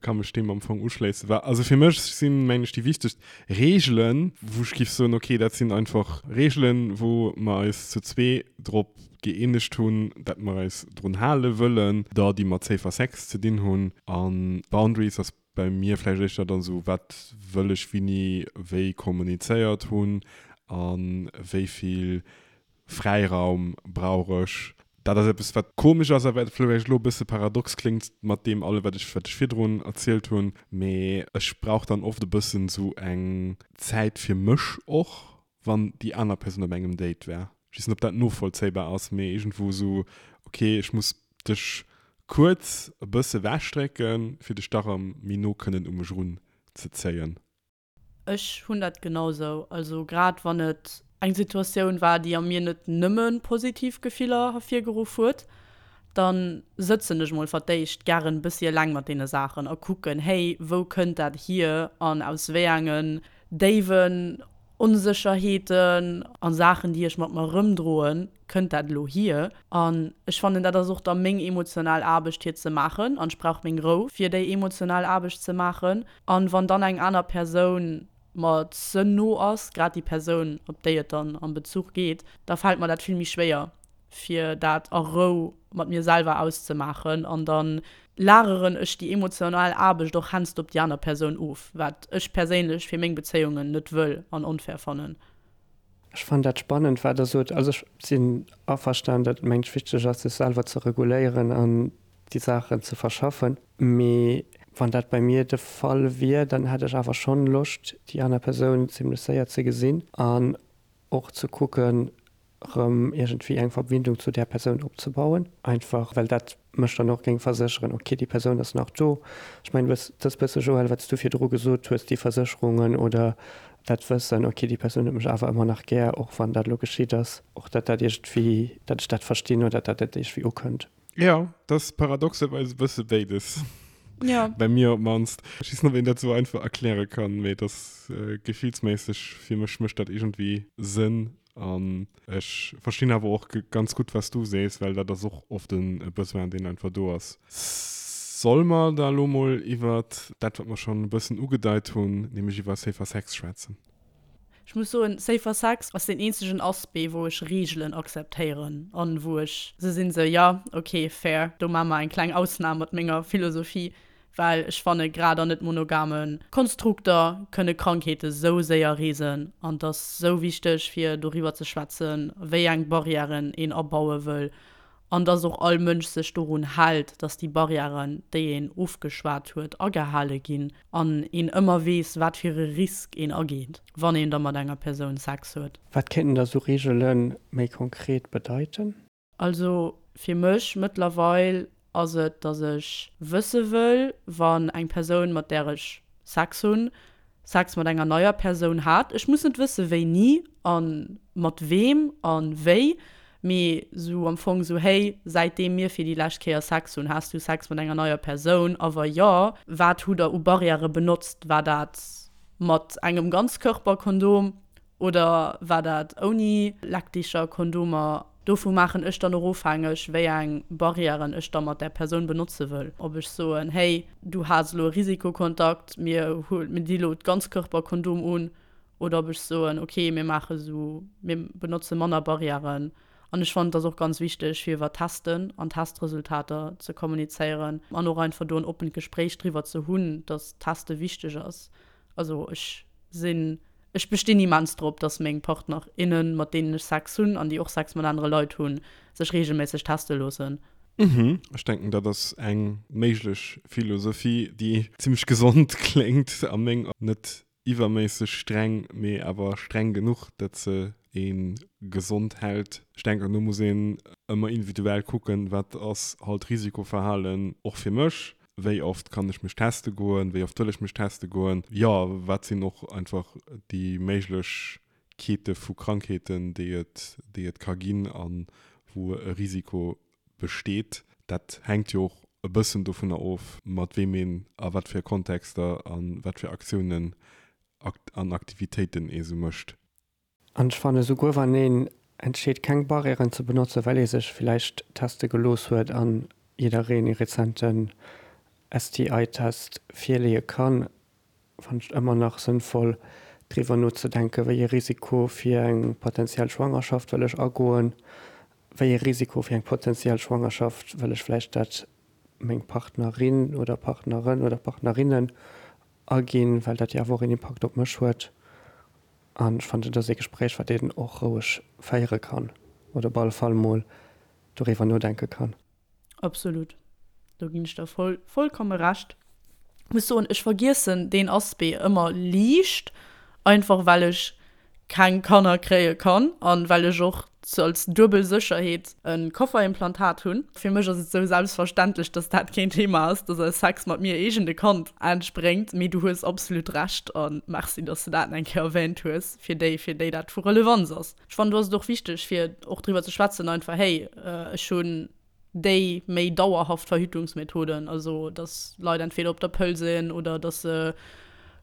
Ka mech deem am Fong uschléissen. Wa, also fir mech sinn, mengen ech, déi wichtegst Reegelen, wou ech giff soen, okay, dat sinn einfach Reegelen, wou mer eis zu zwee drop gëeenegt hunn, dat mer eis drun hale wëllen, da déi mat Safer Sex ze dinn hunn. A Boundaries ass bei mir vläicht éischter dann esou, wat wëll ech wini wéi kommunizéiert hunn a wéi vill Fräiraum brauch ech. Dat ass eppes, wat komesch ass a wat vläicht elo e bësse paradox kléngt mat deem allem, wat ech, wat ech virdrun erzielt hunn. Mee ech brauch dann oft e bëssen esou eng Zäit fir mech och, wann déi aner Persoun op engem Date war. Ech weess net, ob dat novollzéibar ass, mee iergendwou esou, okay, ech muss dech kuerz e bësse ewechdrécken, fir dech da rëm méi no kënnen u mech erunzezéien. Ech hunn dat genau sou. Also grad wann et eng Situatioun war, déi a mir net nëmme positiv Gefiller hervirgeruff huet, da sëtzen ech mol verdéischt gären e bëssi eleng mat deene Saachen a kucken, hey, wou kënnt dat hier an aus wéi engen déiwen Onsécherheeten a Saachen, déi ech mat mer erëmdroen, kënnt dat elo hier. An ech fannen, dat ass och da meng emotional Aarbecht fir ze maachen an ech brauch meng Rou fir déi emotional Aarbecht ze maachen. An wann dann eng aner Persoun mer ze no ass, grad déi Persoun, op déi et dann am Bezuch geet, da fält mer dat vill méi schwéier, fir dat a Rou mat mir selwer auszemaachen. An da lageren ech déi emotional Aarbecht och hennst op déi aner Persoun of, wat ech perséinlech fir meng Bezéiungen net wëll an onfair fannen. Ech fannen dat spannend, wat Der sot. Also ech sinn averstan, datt et mengt wichteg ass, sech selwer ze reguléieren an déi Saachen ze verschaffen. Mee wann dat bei mir de Fall wier, dann hätt ech awer schonn Loscht, déi aner Persoun zimlech séier ze gesinn an och ze kucken, erëm iergendwéi eng Verbindung zu där Persoun opzebauen. Einfach well dat mech dann och géing versécheren, ok, déi Persoun ass nach do. Ech mengen, dat ass e bësse, Joël, wat s du virdru gesot hues, déi Versécherungen oder dat Wëssen, ok, déi Persoun huet mech awer ëmmer nach gär, och wann dat elo geschitt ass, och datt dat iergendwéi, datt ech dat verstinn oder datt dat iergendwéi ukënnt. Jo, dat ass paradoxerweis e bësse béides. Ja. Bei mir op d'mannst. Ech weess net, ob een dat esou einfach erkläre kann, mee et ass gefillsméisseg, fir mech mécht dat iergendwéi Sënn. An ech verstinn awer och ganz gutt, wat s du sees, well dat ass och oft e Besoin, deen einfach do ass. Solle mer da elo mol iwwert dat, wat mer schonn e bëssen ugedeit hunn, nämlech iwwer Safer Sex schwätzen? Ech muss soen, Safer Sex ass deen eenzegen Aspect, wou ech Reegelen akzeptéieren an wou ech se sinn, sou, jo, ok, fair, do maache mer eng kleng Ausnam mat menger Philosophie, well ech fanne grad an net monogame Konstrukter kënne Krankheete sou séier reesen an et ass sou wichteg fir doriwwer ze schwätzen, wéi eng Barrièren een abaue wëll an dass och all Mënsch sech dorun hält, dass déi Barrièren, déi een ofgeschwat huet, agehale ginn an een ëmmer weess, wat fir e Risk een ageet, wann een da mat enger Persoun Sex huet. Wat kéinten da sou Reegele méi konkret bedeiten? Also fir mech mëttlerweil ass et, dass ech wësse wëll, wann eng Persoun, mat där ech Sex hunn, Sex mat enger neier Persoun hat. Ech muss net wësse wéini a mat weem a wéi, mee sou am Fong sou, hey, säitdeem mir fir déi lescht Kéier Sex hunn, has du Sex mat enger neier Persoun? A wa jo, wat hutt der u Barrièrë benotzt? War dat mat engem Ganzkörperkondom Oder war dat ouni Leckdicher, Kondomer? Dovu maachen ech dann och ofhängeg, wéi eng Barrièren ech da mat där Persoun benotze wëll. Ob ech soen, hey, du has elo e Risikokontakt, mir mir di elo d'Ganzkörperkondom un. Oder ob ech soen, okay, mir maache sou, mir benotze manner Barrièren. An ech fannen, et ass och ganz wichteg, fir iwwer Testen an Testresultater ze kommunizéieren an och einfach do en oppent Gespréich driwwer ze hunn, dass Teste wichteg ass. Also ech sinn, ech bestinn immens drop, dass meng Partner, innen, mat deenen ech Sex hunn an déi och Sex mat anere Leit hunn, sech reegelméisseg teste loossen. Mhm, ech denken dat ass eng méiglech Philosophie, déi zimmlech gesond kléngt a meng Aen. Net iwwerméisseg streng, mee awer streng genuch, dat se ee gesond hält. Ech denken do muss een ëmmer individuell kucken, wat ass halt Risikoverhalen och fir mech, Wéi oft kann ech mech teste goen? Wéi oft wëll ech mech teste goen? Jo, wat sinn och einfach déi Méiglechkeete vu Krankheeten, déi et, déi et ka ginn a wou e Risiko besteet? Dat hänkt jo och e bëssen dovunner of, mat weem een a wat fir Kontexter a wat fir Aktiounen an Aktivitéiten ee sou mécht. An ech fannen, souguer wann een entscheet keng Barrièren ze benotzen, well ee sech villäicht teste gelooss huet an jiddereen ee rezenten. STI-Test virleeë kann, fannen ech et ëmmer nach sënnvoll, driwwer nozedenken, wéi ee Risiko fir eng potenziell Schwangerschaft wëll ech agoen, wéi ee Risiko fir eng potenziell Schwangerschaft wëll ech vläicht dat meng Partnerin oder Partneren oder Partnerinnen aginn, well dat jo awer och een Impakt op mech huet. An ech fannen, dat ass ee Gespréich, wat een och roueg féiere kann oder op alle Fall mol doriwwer nodenke kann. Absolut, do ginn ech der voll, vollkomme Recht. Muss soen, ech vergiessen deen Aspect ëmmer liicht, einfach well ech keng Kanner kréie kann an well ech och als duebel Sécherheet e Kofferimplantat hunn. Fir mech ass et sou selbstverständlech, dass dat keen Thema ass, dass aus Sex mat mir iergend e Kand entspréngt. Mee du hues absolut Recht a Merci, dass de dat eng Kéier erwähnt hues, fir déi, fir déi dat vu Relevanz ass. Ech fannen, do ass et och wichteg, fir och driwwer ze schwätzen einfach, hey, ech hunn déi méi dauerhaft Verhütungsmethoden, also dass Leit entweder op der Pëll sinn oder dass se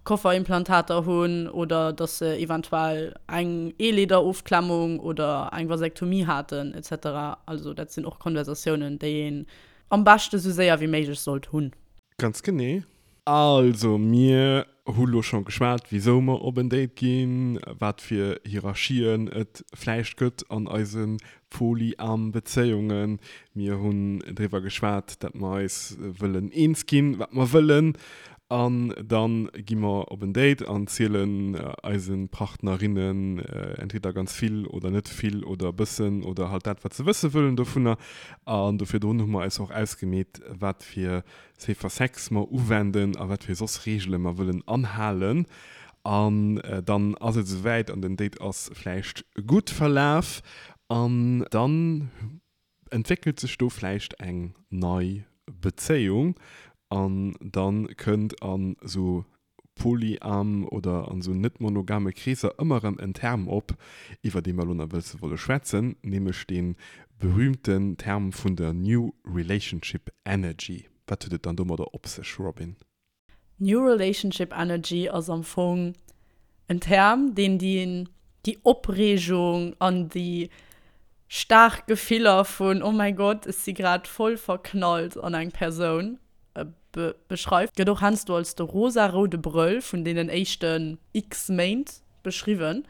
Kofferimplantater hunn oder dass se eventuell eng Eeleederofklemmung oder eng Vasektomie haten et cetera. Also dat sinn och Konversatiounen, déi een am beschte sou séier wéi méiglech sollt hunn. Ganz genee. Also, mir hu lo scho geschwat, wisou mer op en Date ginn, wat fir Hierarchien et vläicht gëtt an eise polyam Bezéiungen. Mir hunn driwwer geschwat, dat mer eis wëllen eens ginn, wat mer wëllen. An da gi mer op en Date an zielen eise Partnerinnen entweder ganz vill oder net vill oder e bëssen oder halt dat, wat se wësse wëllen dovunner. An do virdrun hu mer eis och ausgemeet, wat fir Safer Sex mer uwenden a wat fir soss Reegele mer wëllen anhalen. An dann ass et esouwäit an den Date ass vläicht gutt verlaf an dann entwéckelt sech do vläicht eng nei Bezéiung an dann kënnt an esou polyam oder an esou net monogame Kreesser ëmmer erëm en Term op, iwwer dee mer elo nach wëlze wolle schwätzen, nämlech dee berühmten Term vun der New Relationship Energy. Wat huet et dann domadder op sech, Robin? New Relationship Energy ass am Fong en Term, deen déi Opreegung an déi staark Gefiller vun Oh mäi Gott, ech si grad voll verknallt an eng Persoun beschreift, gëtt och heiansdo als de rosa-roude Brëll vun deenen éischten x Méint beschriwwen.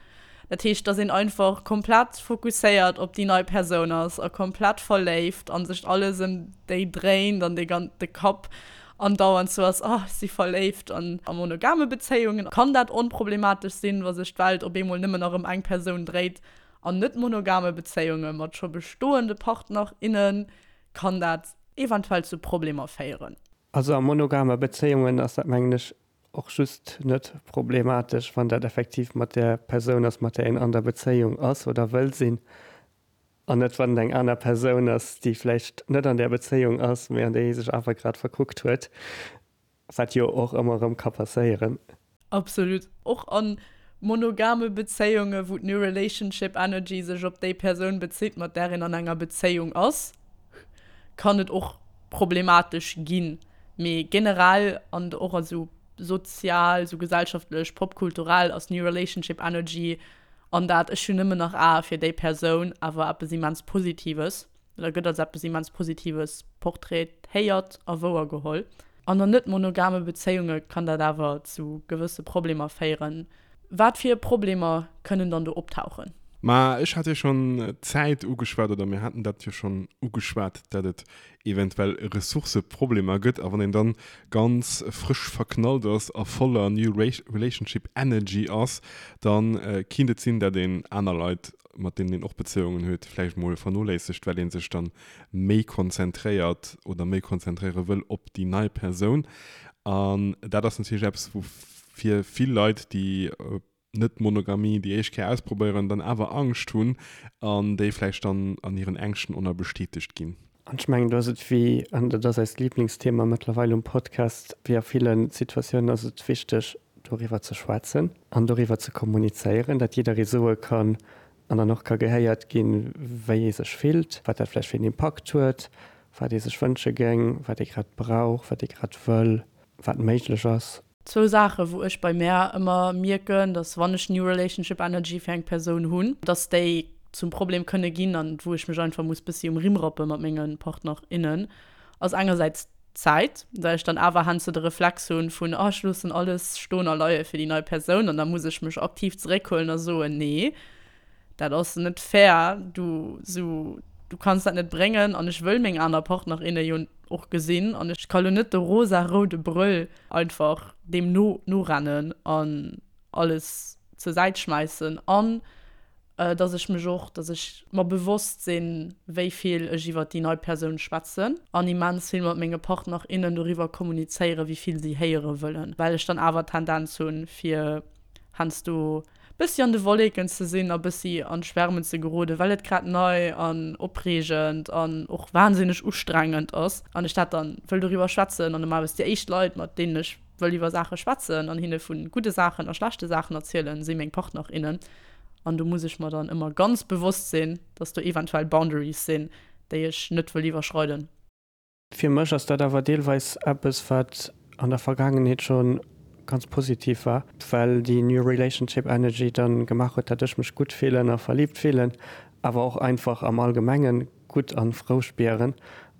Dat heescht, dass een einfach komplett fokusséiert op déi nei Persoun ass a komplett verléift a sech alles ëm déi dréint an de gan de Kapp andauernd sou ass, oh ech si verléift. An a monogame Bezéiungen kann dat onproblematesch sinn, wa sech d'Welt op eemol nëmmen nach ëm eng Persoun dréit. An net monogame Bezéiunge mat scho bestoende Partner, innen kann dat eventuell zu Problemer féieren. Also a monogame Bezéiungen ass dat mengen ech och just net problematesch, wann dat effektiv mat där Persoun ass, mat där een an der Bezéiung ass oder wëll sinn, an net wann et eng aner Persoun ass, déi vläicht net an där Bezéiung ass, mee an déi ee sech awer grad verkuckt huet. Wat jo och ëmmer erëm ka passéieren. Absolut. Och a monogame Bezéiunge wou d'New Relationship Energy sech op déi Persoun bezitt, mat där een an enger Bezéiung ass, kann et och problematesch ginn. Mee generell an och a sou sozial, sou gesellschaftlech, popkulturell ass New Relationship Energy an dat ech hunn nëmmen nach Ae fir déi Persoun awer eppes immens Positives. Oder gëtt als eppes immens Positives portraitéiert a wouergeholl. An an net monogame Bezéiunge kann dat awer zu gewësse Problemer féieren. Wat fir Problemer kënnen dann do optauchen? Ma ech hat jo schonn d'Zäit ugeschwat, oder mir haten dat jo schonn ugeschwat, dat et eventuell Ressourcëproblemer gëtt. A wann een dann ganz frësch verknallt ass a voller New Relationship Energy ass, da kinnt et sinn, dat een aner Leit mat deenen een och Bezéiungen huet, vläicht mol vernoléissegt, well ee sech dann méi konzentréiert oder méi konzentréiere wëll op déi nei Persoun. An dat ass natierlech eppes, wou fir vill Leit, déi Net-Monogamie déi éischt Kéier ausprobéieren, dann awer Angscht hunn an déi vläicht dann an hiren Ängschten och nach bestätegt ginn. An ech mengen, do ass et wéi, an dat ass eist Liblingsthema mëttlerweil um Podcast, wéi a ville Situatiounen ass et wichteg, doriwwer ze schwätzen an doriwwer ze kommunizéieren, dat jidderee soe kann an dann och ka gehéiert ginn, wéi ee sech fillt, wat dat vläicht fir een Impakt huet, wat ee sech wënsche géing, wat ee grad brauch, wat ee grad wëll, wat méiglech ass. Zwou Saachen, wou ech bei mär ëmmer mierken, dass wann ech New Relationship Energy fir eng Persoun hunn, dass déi zum Problem kënne ginn an wou ech mech einfach muss bëssi um Rimm rappe mat menge Partner, innen, ass engersäits. Zäit, well ech dann awer heiansdo de Reflex hunn vun, oh ech loossen alles stoen a leie fir déi nei Persoun an da muss ech mech aktiv zeréckhuelen a soen, nee, dat ass net fair, du sou, du kanns dat net bréngen an ech wëll meng aner Partner, inne jo och gesinn an ech ka lo net de rosa-roude Brëll einfach deem no norennen an alles zur Säit schmäissen an dass ech mech och, dass ech mer bewosst sinn, wéi vill ech iwwert déi nei Persoun schwätzen an immens vill mat menge Partner, innen doriwwer kommunizéieren, wéi vill si héiere wëllen, well ech dann awer d'Tendenz hunn, fir heiansdo bëssi an de Wolleken ze sinn a bëssi an d'Schwärmen ze geroden, well et grad nei an opreegend an och wahnsinneg ustrengend ass an ech dat dann wëll doriwwer schwätzen an normalerweis déi éischt Leit, mat deenen ech wëll iwwer Saache schwätzen an hinne vu gudde Saachen a schlechte Saachen erzielen, si meng Partner, innen. An do muss ech mer dann ëmmer ganz bewosst sinn, dass do eventuell Boundaries sinn, déi ech net wëll iwwerschreiden. Fir mech ass dat awer deelweis eppes, wat an der Vergaangenheet scho ganz positiv war, well déi New Relationship Energy dann gemaach huet, dat ech mech gutt fillen a verliibt fillen, awer och einfach am Allgemengen gutt an frou spieren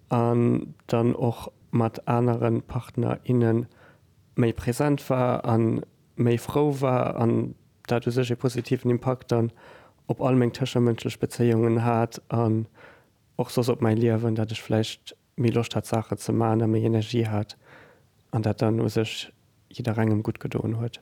an dann och mat anere Partner, inne méi present war a méi frou war an dat u sech ee positiven Impakt dann op all meng tëschemënschlech Bezéiungen hat an och soss op mäi Liewen, dat ech vläicht méi Loscht hat Saachen ze maachen a méi Energie hat an dat dann u sech jidderengem gutt gedoen huet.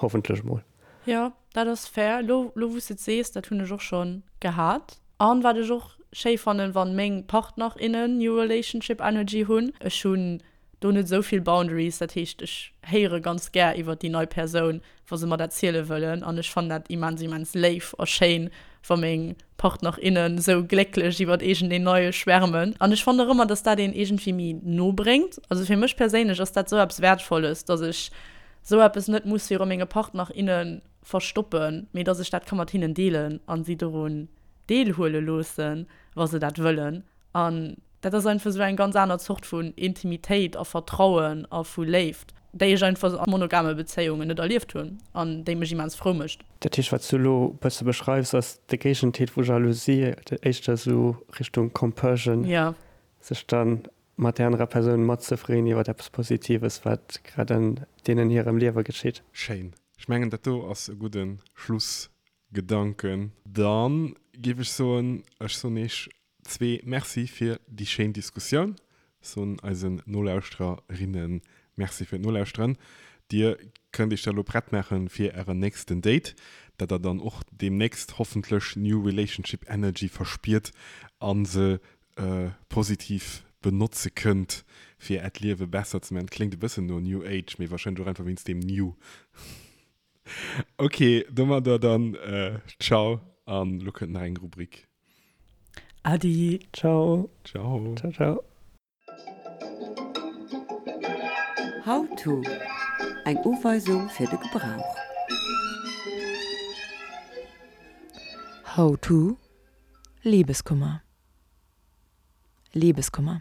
Hoffentlech mol. Jo, dat ass fair. Lo, lo wou s de et sees, dat hunn ech och schonn gehat. An wat ech och schéi fannen, wann meng Partner, innen New Relationship Energy hunn. Ech hunn do net esou vill Boundaries, dat heescht ech héiere ganz gär iwwert déi nei Persoun, wa se mer dat ziele wëllen. An ech fannen dat immens, immens léif a schéin, wa meng Partner, innen esou glécklech iwwert iergendeen Neie schwärmen. An ech fannen och ëmmer, dass dat een iergendwéi méi no bréngt. Also fir mech perséinlech ass dat esou eppes Wäertvolles, dass ech sou eppes net muss viru menge Partner, inne verstoppen, mee dass ech dat ka mat hinnen deelen an si dorun deelhuele loossen, wa se dat wëllen. An dat ass einfach sou eng ganz aner Zort vun Intimitéit a Vertrauen a vu Léift, déi ech einfach a monogame Bezéiungen net erlieft hunn an déi mech immens frou mécht. Dat heescht, wat s du elo e bësse beschreifs, ass de Géigenteet vu Jalousie, éischter sou Richtung Compersion, sech dann mat där anerer Persoun matzefreeën iwwer eppes Positives, wat grad an deenen hirem Liewe geschitt. Schéin. Ech mengen, dat do ass e gudde Schlussgedanken. Da géif ech soen, ech soen Iech zwee Merci fir déi schéin Diskussioun. Soen eisen Nolauschtererinnen Merci fir d'Nolauschteren. Dir kënnt Iech da lo prett maachen fir Ären nächsten Date, dat der dann och deemnächst hoffentlech New Relationship Energy verspiert a se positiv benotze kënnt fir äert Liewe besser ze man. Kléngt e bëssen no New Age, mee wahrscheinlech och einfach wéinst deem New. Ok, domadder dann ciao an lo kënnt nach eng Rubrik. Adi. Ciao. Ciao. Ciao ciao. How to, Eng Uweisung fir de Gebrauch. How to, Libeskummer. Libeskummer.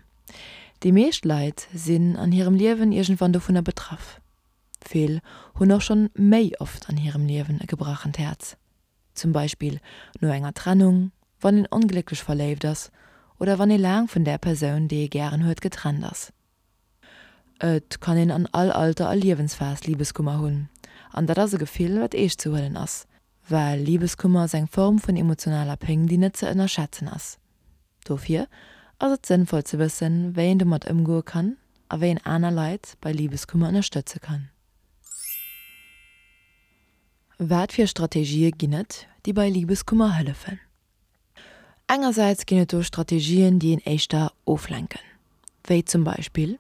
Déi meescht Leit sinn an hirem Liewen iergendwann dovunner betraff. Vill hunn och schonn méi oft an hirem Liewen e gebrachent Häerz. Zum Beispill no enger Trennung, wann een onglécklech verléift ass oder wann ee laang vun där Persoun, déi ee gären huet, getrennt ass. Et kann een an all Alter a Liewensphas Libeskummer hunn an dat ass e Gefill, wat eescht ze huelen ass. Well Libeskummer ass eng Form vun emotionaler Péng, déi net ze ënnerschätzen ass. Dofir ass et sënnvoll ze wëssen, wéi een domat ëmgoe kann a wéi een aner Leit bei Libeskummer ënnerstëtze kann. Wat fir Strategië ginn et, déi bei Libeskummer hëllefen? Engersäits ginn et do Strategien, déi een éischter oflenken, wéi zum Beispill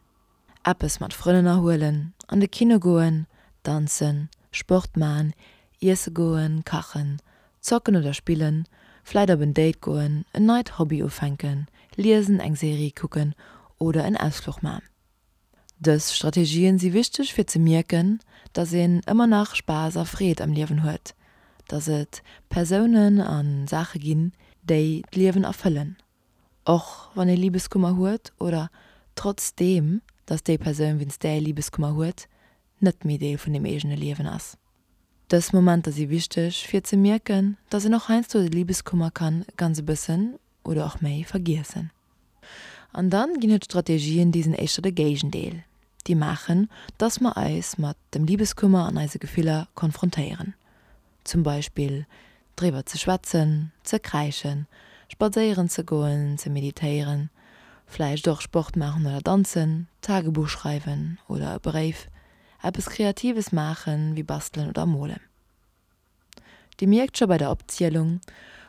eppes mat Frënn ënnerhuelen, an de Kino goen, danzen, Sport man, iesse goen, kachen, zocken oder spillen, vläit op en Date goen, en neit Hobby ufänken, liesen, eng Serie kucken oder en Ausfluch man. Dës Strategien si wichteg fir ze mierken, dass een ëmmer nach Spaass a Freed am Liewen huet, dass et Persounen a Saache ginn, déi d'Liewen erfëllen, och wann ee Libeskummer huet oder trotzdeem dass déi Persoun wéinst där ee Libeskummer huet, net méi Deel vun dem eegene Liewen ass. Dës Momenter si wichteg fir ze mierken, dass een och heiansdo de Libeskummer kann ganz e bëssen oder och méi vergiessen. An dann ginn et Strategien, déi sinn éischter de Géigendeel, déi maachen, dass mer eis mat dem Libeskummer an eise Gefiller konfrontéieren. Zum Beispill driwwer ze schwätzen, ze kräischen, spadséieren ze goen, ze meditéieren, vläicht och Sport maachen oder danzen, Tagebuch schreiwen oder e Bréif, eppes Kreatives maachen, wéi bastelen oder molen. Dir mierkt scho bei der Opzielung,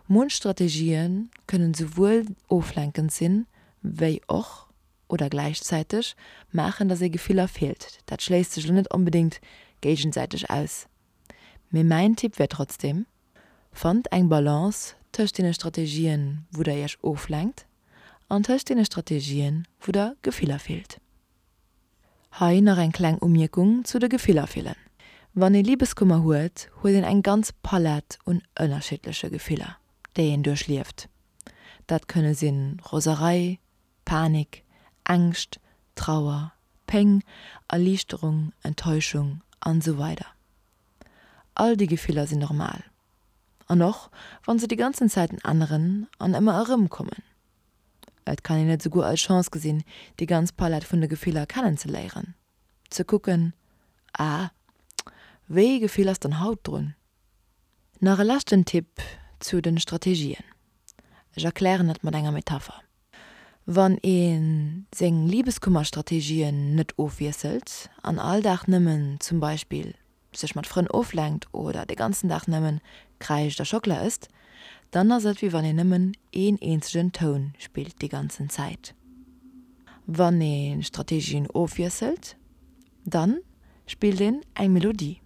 munch Strategië kënnen souwuel oflenkend sinn, wéi och, oder gläichzäiteg, maachen, dass ee Gefiller fillt. Dat schléisst sech elo net onbedéngt géigesäiteg aus. Mee mäin Tipp wär trotzdem, Fannt eng Balance tëscht deene Strategien, wou der iech oflenkt, an tëscht deene Strategien, wou der Gefiller fillt. Hei nach eng kleng Umierkung zu de Gefiller fillen. Wann ee Libeskummer huet, huet een eng ganz Palett un ënnerschiddleche Gefiller, déi een duerchlieft. Dat kënne sinn Roserei, Panik, Ängscht, Trauer, Péng, Erliichterung, Enttäuschung an esou weider All déi Gefiller sinn normal. An och wann se déi ganzen Zäiten änneren an ëmmer erëmkommen. Et kann een et esouguer als Chance gesinn, déi ganz Palett vun de Gefiller kennenzeléieren. Ze kucken, Ah, wéi ee Gefill ass dann haut drun? Nach e leschten Tipp zu den Strategien. Ech erklären et mat enger Metapher. Wann ee seng Libeskummerstrategien net ofwiesselt an all Dag nëmmen zum Beispill sech mat Frënn oflenkt oder de ganzen Dag nëmmen kräischt a Schockela ësst, dann ass et wéi wann een nëmmen een eenzegen Toun spillt déi ganzen Zäit. Wann ee Strategien ofwiesselt, dann spillt een eng Melodie.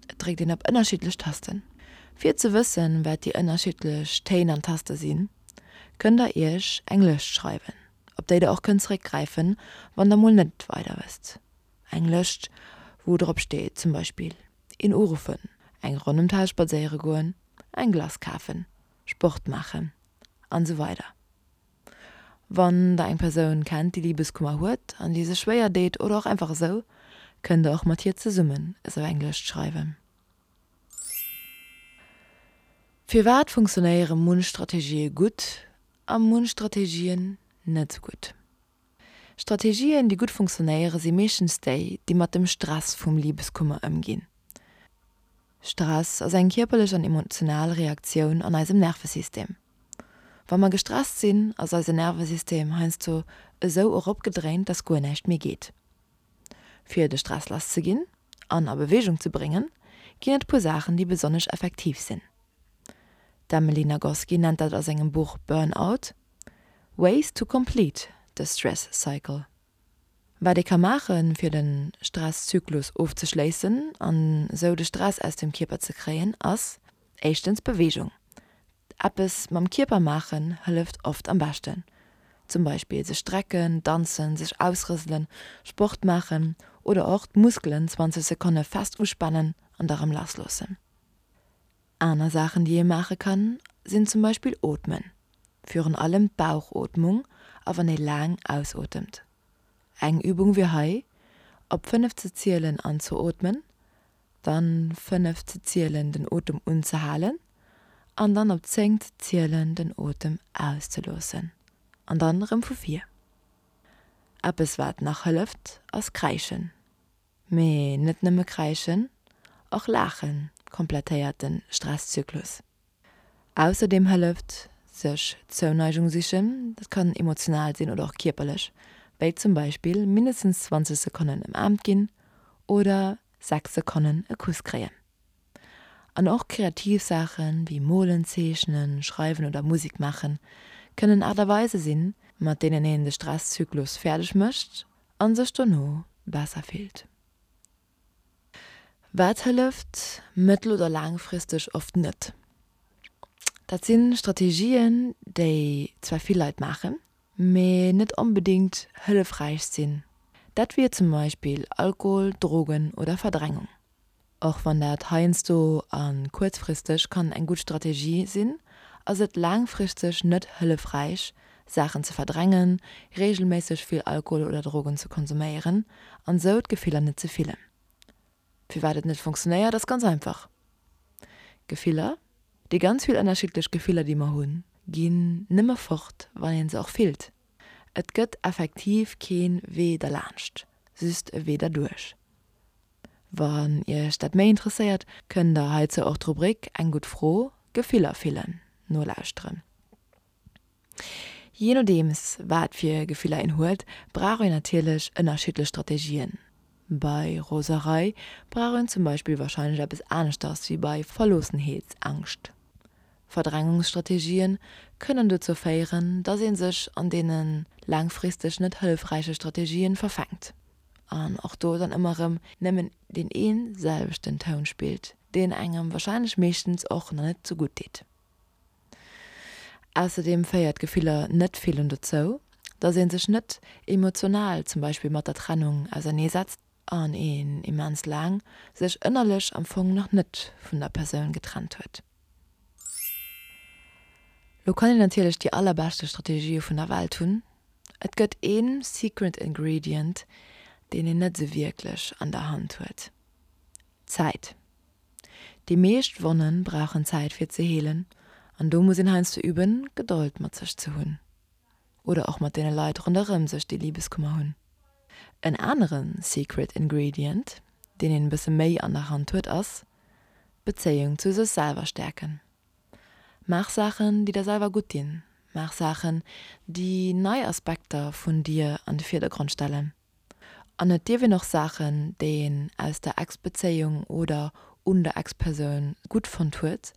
Et dréckt een op ënnerschiddlech Tasten. Fir ze wëssen, wat déi ënnerschiddlech Téin an Taste sinn, kënnt der iech eng Lëscht schreiwen, op déi der och kënnt zeréckgräifen, wann der mol net weider wësst. Eng Lëscht, wou drop steet zum Beispill, een uruffen, eng Ronn ëm d'Haus spadséiere goen, eng Glace kafen, Sport maachen an esou weider. Wann der eng Persoun kennt, déi Libeskummer huet an déi sech schwéier deet oder och einfach esou, kënnt der och mat hir zesummen esou eng Lëscht schreiwen. Firwat funktionéiere munch Strategië gutt a munch Strategien net esou gutt? Strategien, déi gutt funktionéiere si meeschtens déi, déi mat dem Stress vum Libeskummer ëmginn. Stress ass eng kierperlech an emotional Reaktioun an eisem Nervesystem. Wa mer gestresst sinn, ass eise Nervesystem heiansdo esou eropgedréint, dass guer näischt méi geet. Fir de Stress lass ze ginn an a Beweegung ze bréngen, ginn et puer Saachen, déi besonnesch effektiv sinn. D'Emily Nagoski nennt dat a sengem Buch Burnout, Ways to complete the stress cycle. Wat ee ka maachen, fir de Stresszyklus ofzeschléissen an esou de Stress aus dem Kierper ze kréien, ass éischtens Beweegung. Eppes mam Kierper maachen hëlleft oft am beschten. Zum Beispill sech strecken, danzen, sech ausrëselen, Sport maachen oder och d'Muskelen 20 Sekonne fest uspanen an da rëm lassloossen. Aner Saachen déi ee maache kann, sinn zum Beispill ootmen. Virun allem d'Bauchootmung a wann ee laang ausotemt. Eng Übung wier hei, op 5 ze zielen anzeootmen, dann 5 ze zielen den Otem unzehalen an dann op 10 ze zielen den Otem auszeloossen an dann erëm vu vir. Eppes wat nach hëlleft ass kräischen. Mee net nëmme kräischen, och laache komplettéiert de Stresszyklus. Ausserdeem hëlleft sech Zouneigung sichen, dat kann emotional sinn oder och kierperlech, wéi zum Beispill mindestens 20 Sekonnen ëmaarmt ginn oder 6 Sekonnen e Kuss kréien. An och kreativ Saache wéi molen, zeechnen, schreiwen oder Musek maachen, kënnen Aart a Weise sinn, mat deenen een de Stresszyklus fäerdeg mécht a sech dono besser fillt. Wat hëlleft mëttel oder laangfristeg oft net? Dat si Strategien, déi zwar vill Leit maachen, mee net onbedéngt hëllefräich sinn. Dat wier zum Beispill Alkohol, Drogen oder Verdrängung. Och wann dat heiansdo a kuerzfristeg kann eng gutt Strategie sinn, ass et laangfristeg net hëllefräich, Saachen ze verdrängen, reegelméisseg vill Alkohol oder Drogen ze konsuméieren an sou d'Gefiller net ze fillen. Firwat et net funktionéiert ass ganz einfach, Gefiller, déi ganz vill ënnerschiddlech Gefiller déi mer hunn, ginn nëmme fort wann een se och fillt. Et gëtt effektiv keen Wee derlaanscht, just e Wee derduerch. Wann iech dat méi interesséiert, kënnt der heizou och d'Rubrik Eng gutt Fro, Gefiller fillen nolauschteren. Jee nodeems wat fir Gefiller een huet, brauch een natierlech ënnerschiddlech Strategien. Bei Roserei brauch een zum Beispill warscheinlech eppes aneschters wéi bei Verloossenheetsangscht. Verdrängungsstrategien kënnen dozou féieren, dass ee sech an deene laangfristeg net hëllefräiche Strategien verfänkt an och do dann ëmmer erëm nëmmen deen ee selwechten Toun spillt, deen engem warscheinlech meeschtens och nach net sou gutt deet. Ausserdeem féiert Gefiller net fillen dozou, dass ee sech net emotional zum Beispill mat der Trennung auserneesetzt an een immens laang sech ënnerlech am Fong nach net vun der Persoun getrennt huet. Lo kann een natierlech déi allerbeschte Strategië vun der Welt hunn, et gëtt een secret ingredient, deen een net sou wierklech an der Hand huet, Zäit. Déi meescht Wonnen brauchen Zäit fir ze heelen an do muss een heiansdo üben, Gedold mat sech ze hunn oder och mat deene Leit ronderëm sech, déi Libeskummer hunn. En anere secret ingredient, deen een e bësse méi an der Hand huet, ass d'Bezéiung zu sech selwer stäerken. Maach Saachen, déi der selwer gutt dinn. Maach Saachen, déi nei Aspekter vun dir an de Virdergrond stellen. An et dierf een och Saachen, déi een aus der Ex-Bezéiung oder un der Ex-Persoun gutt fonnt huet,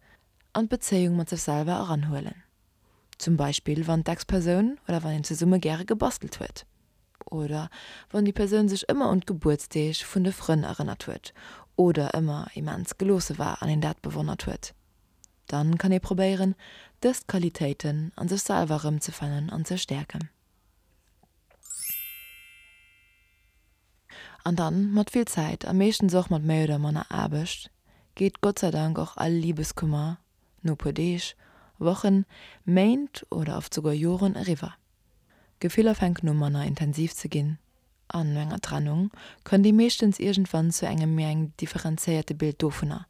an d'Bezéiung mat sech selwer eranhuelen. Zum Beispill wann d'Ex-Persoun oder wann een zesumme gäre gebastelt huet. Oder wann déi Persoun sech ëmmer un d'Gebuertsdeeg vun de Frënn erënnert huet oder ëmmer immens geloosse war an een dat bewonnert huet. Dann kann ee probéieren, dës Qualitéiten an sech selwer erëmzefannen an ze stäerken. An dann, mat vill Zäit a meeschtens och mat méi oder manner Aarbecht, geet Gott sei Dank och all Libeskummer no puer Deeg, Wochen, Méint oder oft souguer Joren eriwwer. D'Gefiller fänken u manner intensiv ze ginn an no enger Trennung kënnt ee meeschtens iergendwann zu engem méi engem differenzéierte Bild dovunner,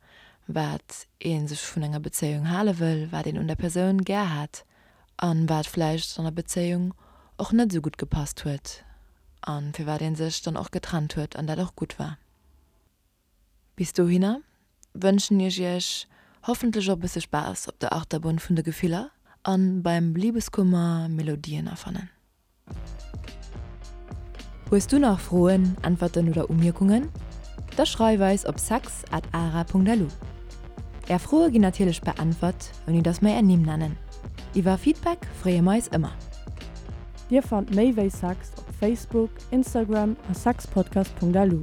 wat ee sech vun enger Bezéiung hale wëll, wat een un der Persoun gär hat an wat vläicht an der Bezéiung och net esou gutt gepasst huet an firwat ee sech dann och getrennt huet an dat och gutt war. Bis dohinner wënschen ech iech hoffentlech och e bësse Spaass op der Achterbunn vun de Gefiller an beim Libeskummer Melodien erfannen. Hues du nach Froen, Äntwerten oder Umierkungen? Da schreif eis op sex at ara.lu. Är Froe ginn natierlech beäntwert, ouni dass mer är Nimm nennen. Iwwer Feedback freeë mer eis ëmmer. Dir fannt méi wéi Sex op Facebook, Instagram a sexpodcast.lu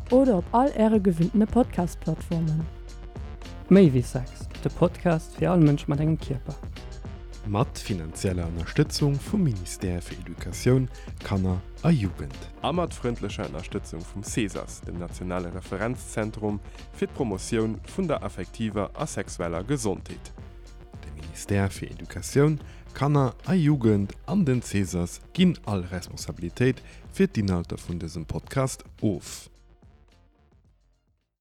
oder op all äre gewinntene Podcast-Plattformen. Méi wéi Sex, de Podcast fir all Mënsch mat engem Kierper. Mat finanzieller Ënnerstëtzung vum Ministère fir Educatioun, Kanner a Jugend. A mat frëndlecher Ënnerstëtzung vum CESAS, dem nationale Referenzzentrum fir d'Promotioun vun der affektiver a sexueller Gesondheet. De Ministère fir Educatioun, Kanner a Jugend an den CESAS ginn all Responsabilitéit fir d'Inhalter vun dësem Podcast of.